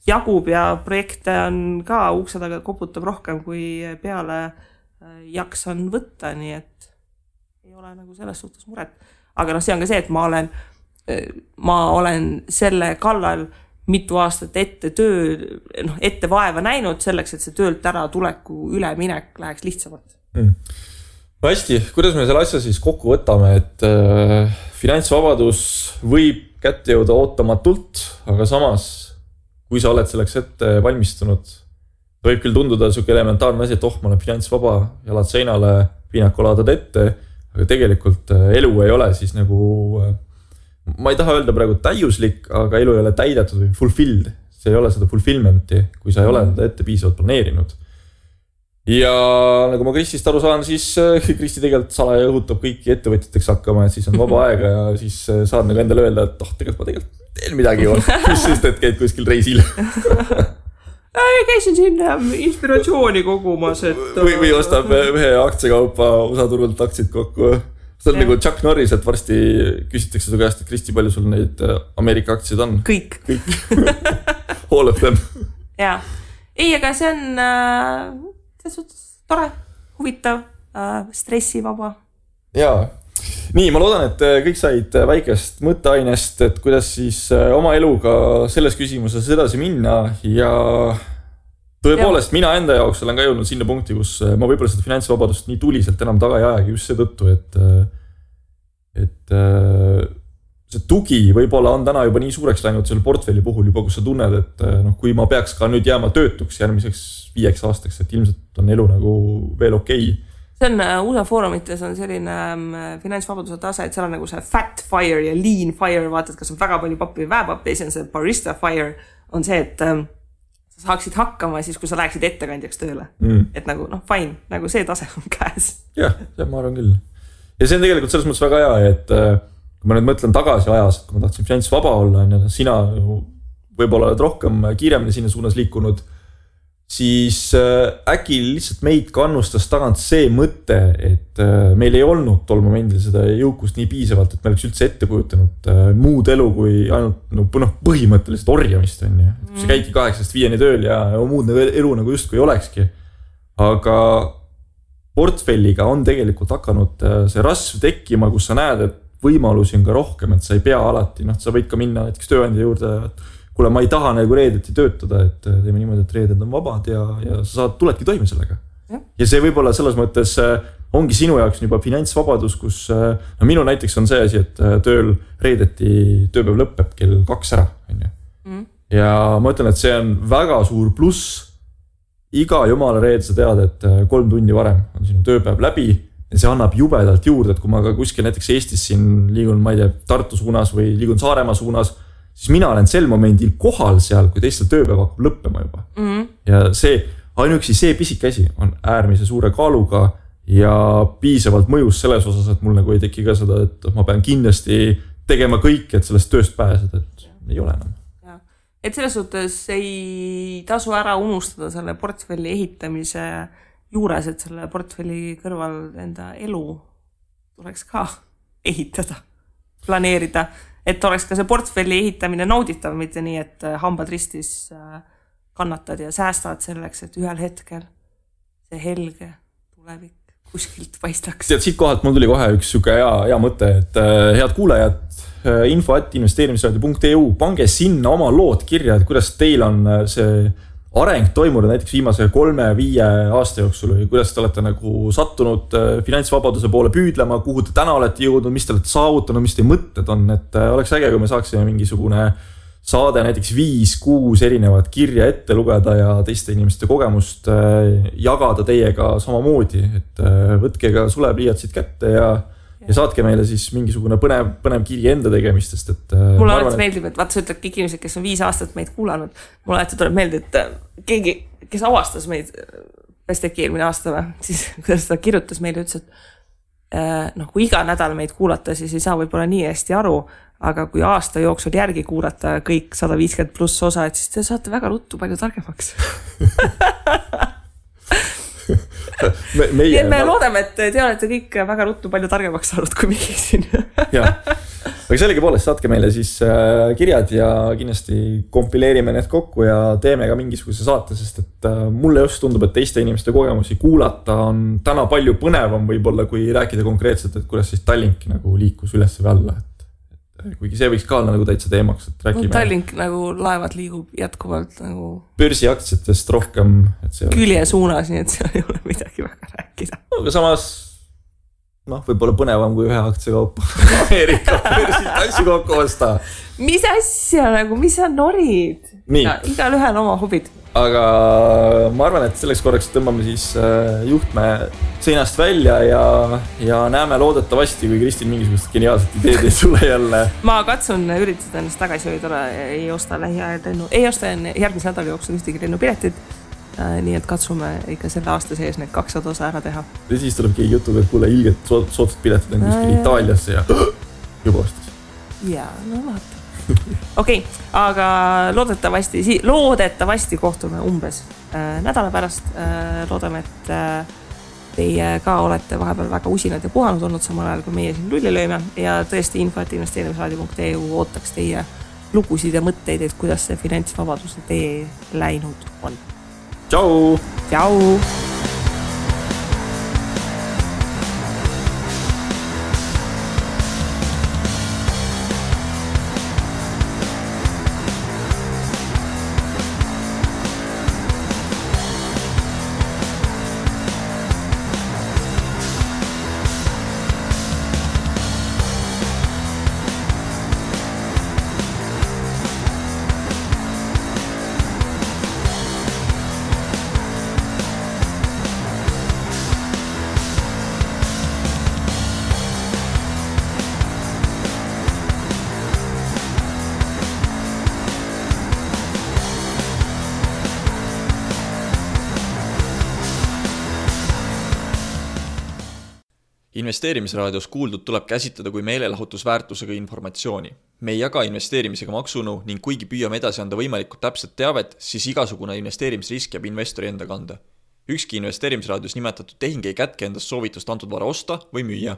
jagub ja projekte on ka ukse taga koputab rohkem, kui peale jaksan võtta, nii et ei ole nagu selles suhtes muret. Aga see on ka see, et ma olen selle kallal mitu aastat ette vaeva näinud selleks, et see töölt ära tuleku üleminek läheks lihtsamalt. No hästi, kuidas me selle asja siis kokku võtame, et finantsvabadus võib kätte jõuda ootamatult, aga samas, kui sa oled selleks ette valmistunud, võib küll tunduda selline elementaarne asi, et ma olen finantsvaba, jalad seinale, piinakolaadad ette, aga tegelikult elu ei ole siis nagu, ma ei taha öelda praegu täiuslik, aga elu ei ole täidetud või fulfilled. See ei ole seda fulfillmenti, kui sa ei ole seda ette piisavalt planeerinud. Ja nagu ma Kristist aru saan, siis Kristi tegelikult salaja õhutab kõiki ettevõtjateks hakkama, et siis on vaba aega ja siis saad nagu endale öelda, et tegelikult ma teen midagi juba, mis sest, et käid kuskil reisil. Käisin siin inspiratsiooni kogumas, et... Või ostab ühe aktsiakaupa osaturult aktsiid kokku. See on nagu Chuck Norris, et varsti küsitakse su käest, et Kristi, palju sul neid Ameerika aktsiid on? Kõik. All of them. Jaa. Ei, aga see on tore, huvitav, stressivaba. Jaa. Nii, ma loodan, et kõik said väikest mõtteainest, et kuidas siis oma eluga selles küsimuses edasi minna ja tõepoolest mina enda jaoks olen ka jõudnud sinna punkti, kus ma võib-olla seda finantsvabadust nii tuliselt enam taga ei ajagi just seetõttu, et see tugi võib-olla on täna juba nii suureks läinud selle portfelli puhul juba, kus sa tunned, et kui ma peaks ka nüüd jääma töötuks järgmiseks 5 aastaks, et ilmselt on elu nagu veel okei. See on USA foorumites on selline finantsvabaduse tase, et seal on nagu see fat fire ja lean fire, vaatad, kas on väga palju pappi või väepappi, ja see barista fire on see, et sa saaksid hakkama siis, kui sa läheksid ettekandjaks tööle. Et nagu, fine, nagu see tase on käes. Jah, ma arvan küll. Ja see on tegelikult selles mõttes väga hea, et kui ma nüüd mõtlen tagasi ajas, kui ma tahtsin finantsvaba olla, sina võib-olla oled rohkem kiiremini sinna suunas liikunud, siis äkki lihtsalt meid kannustas tagant see mõte, et meil ei olnud tol momendil seda jõukust nii piisavalt, et me oleks üldse ette kujutanud muud elu kui ainult põhimõtteliselt orjamist. Sa käidki 8-5 tööl ja muud elu nagu justkui ei olekski. Aga portfelliga on tegelikult hakanud see rasv tekkima, kus sa näed, et võimalusi on ka rohkem, et sa ei pea alati, sa võid ka minna näiteks tööandja juurde, kuule, ma ei taha nagu reedeti töötada, et teeme niimoodi, et reeded on vabad ja sa tuledki toime sellega. Ja see võib-olla selles mõttes ongi sinu jaoks juba finantsvabadus, kus minu näiteks on see asi, et tööl reedeti tööpäev lõpeb kell 2 ära. Ja ma ütlen, et see on väga suur pluss. Iga jumala reed sa tead, et 3 tundi varem on sinu tööpäev läbi ja see annab jubedalt juurde, et kui ma ka kuskil näiteks Eestis siin liigun, ma ei tea, Tartu suunas või liigun Saaremaa suunas, siis mina olen sel momendil kohal seal, kui teistel tööpäev hakkab lõppema juba. Ja see, ainuüksi see pisik asi on äärmise suure kaaluga ja piisavalt mõjus selles osas, et mul nagu ei teki ka seda, et ma pean kindlasti tegema kõik, et sellest tööst pääseda, et ei ole enam. Et selles suhtes ei tasu ära unustada selle portfelli ehitamise juures, et selle portfelli kõrval enda elu tuleks ka ehitada, planeerida, et oleks ka see portfelli ehitamine nauditav, mitte nii, et hambad ristis kannatad ja säästad selleks, et ühel hetkel see helge tulevik kuskilt paistaks. Siit kohalt mul tuli kohe üks süke hea mõte, et head kuulajad, info@investeerimisradio.eu, pange sinna oma lood kirja, et kuidas teil on see areng toimunud näiteks viimase 3-5 aasta jooksul või kuidas te olete nagu sattunud finantsvabaduse poole püüdlema, kuhu te täna olete jõudnud, mis te olete saavutanud, mis teie mõtted on, et oleks äge, kui me saaksime mingisugune saade näiteks 5-6 erinevat kirja ette lugeda ja teiste inimeste kogemust jagada teiega samamoodi, et võtke ka sulepliiatsid kätte ja saatke meile siis mingisugune põnev kiri enda tegemistest. Et mulle alati meeldib, et vaata sa ütled kõik inimesed, kes on 5 aastat meid kuulanud, mulle alati tuleb meelde, et keegi, kes avastas meid, kas teki eelmine aasta või, siis kuidas ta kirjutas meile, ütles, et kui iga nädal meid kuulata, siis ei saa võib-olla nii hästi aru, aga kui aasta jooksul järgi kuulata kõik 150+ osa, et siis te saate väga ruttu palju targemaks. Me loodame, et te olete kõik väga ruttu palju targemaks saanud kui meie siin. aga sellegipoolest saatke meile siis kirjad ja kindlasti kompileerime need kokku ja teeme ka mingisuguse saate, sest et mulle just tundub, et teiste inimeste kogemusi kuulata on täna palju põnevam võib-olla, kui rääkida konkreetselt, et kuidas siis Tallink nagu liikus üles või alla. Kuigi see võiks ka olla nagu täitsa teemaks, et räägime. Tallink nagu laevad liigub jätkuvalt nagu börsiaktsiatest rohkem. Külje suunas, nii et seal ei ole midagi väga rääkida. Aga samas võib-olla põnevam kui ühe aktsiakaupa Ameerika börsid asju kokku osta. Mis asja nagu, mis sa norid? Igal ühel oma hobid. Aga ma arvan, et selleks korraks tõmbame siis juhtme seinast välja ja näeme loodetavasti, kui Kristin mingisugust geniaalset ideed ei tule jälle. Ma katsun üritada ennast tagasi hoida, ei osta lähiajal lennu, ei osta järgmise nädala jooksul ühtegi lennupiletit. Nii et katsume ikka selle aasta sees need 200 osa ära teha. Ja siis tuleb keegi jutuga, et kuule ilgelt soodsad piletid on kuskil Itaaliasse ja juba ostis. Jaa, no vaata. Okei, aga loodetavasti kohtume umbes nädala pärast. Loodame, et teie ka olete vahepeal väga usinad ja puhanud olnud samal ajal, kui meie siin lulli lööme ja tõesti info@investeerimisraadio.eu ootaks teie lugusid ja mõtteid, et kuidas see finantsvabaduse tee läinud on. Tšau! Tšau! Investeerimisraadios kuuldud tuleb käsitleda kui meelelahutusväärtusega informatsiooni. Me ei jaga investeerimisega maksunu ning kuigi püüame edasi anda võimalikult täpset teavet, siis igasugune investeerimisrisk jääb investori enda kanda. Ükski investeerimisraadios nimetatud tehing ei kätke endast soovitust antud vara osta või müüa.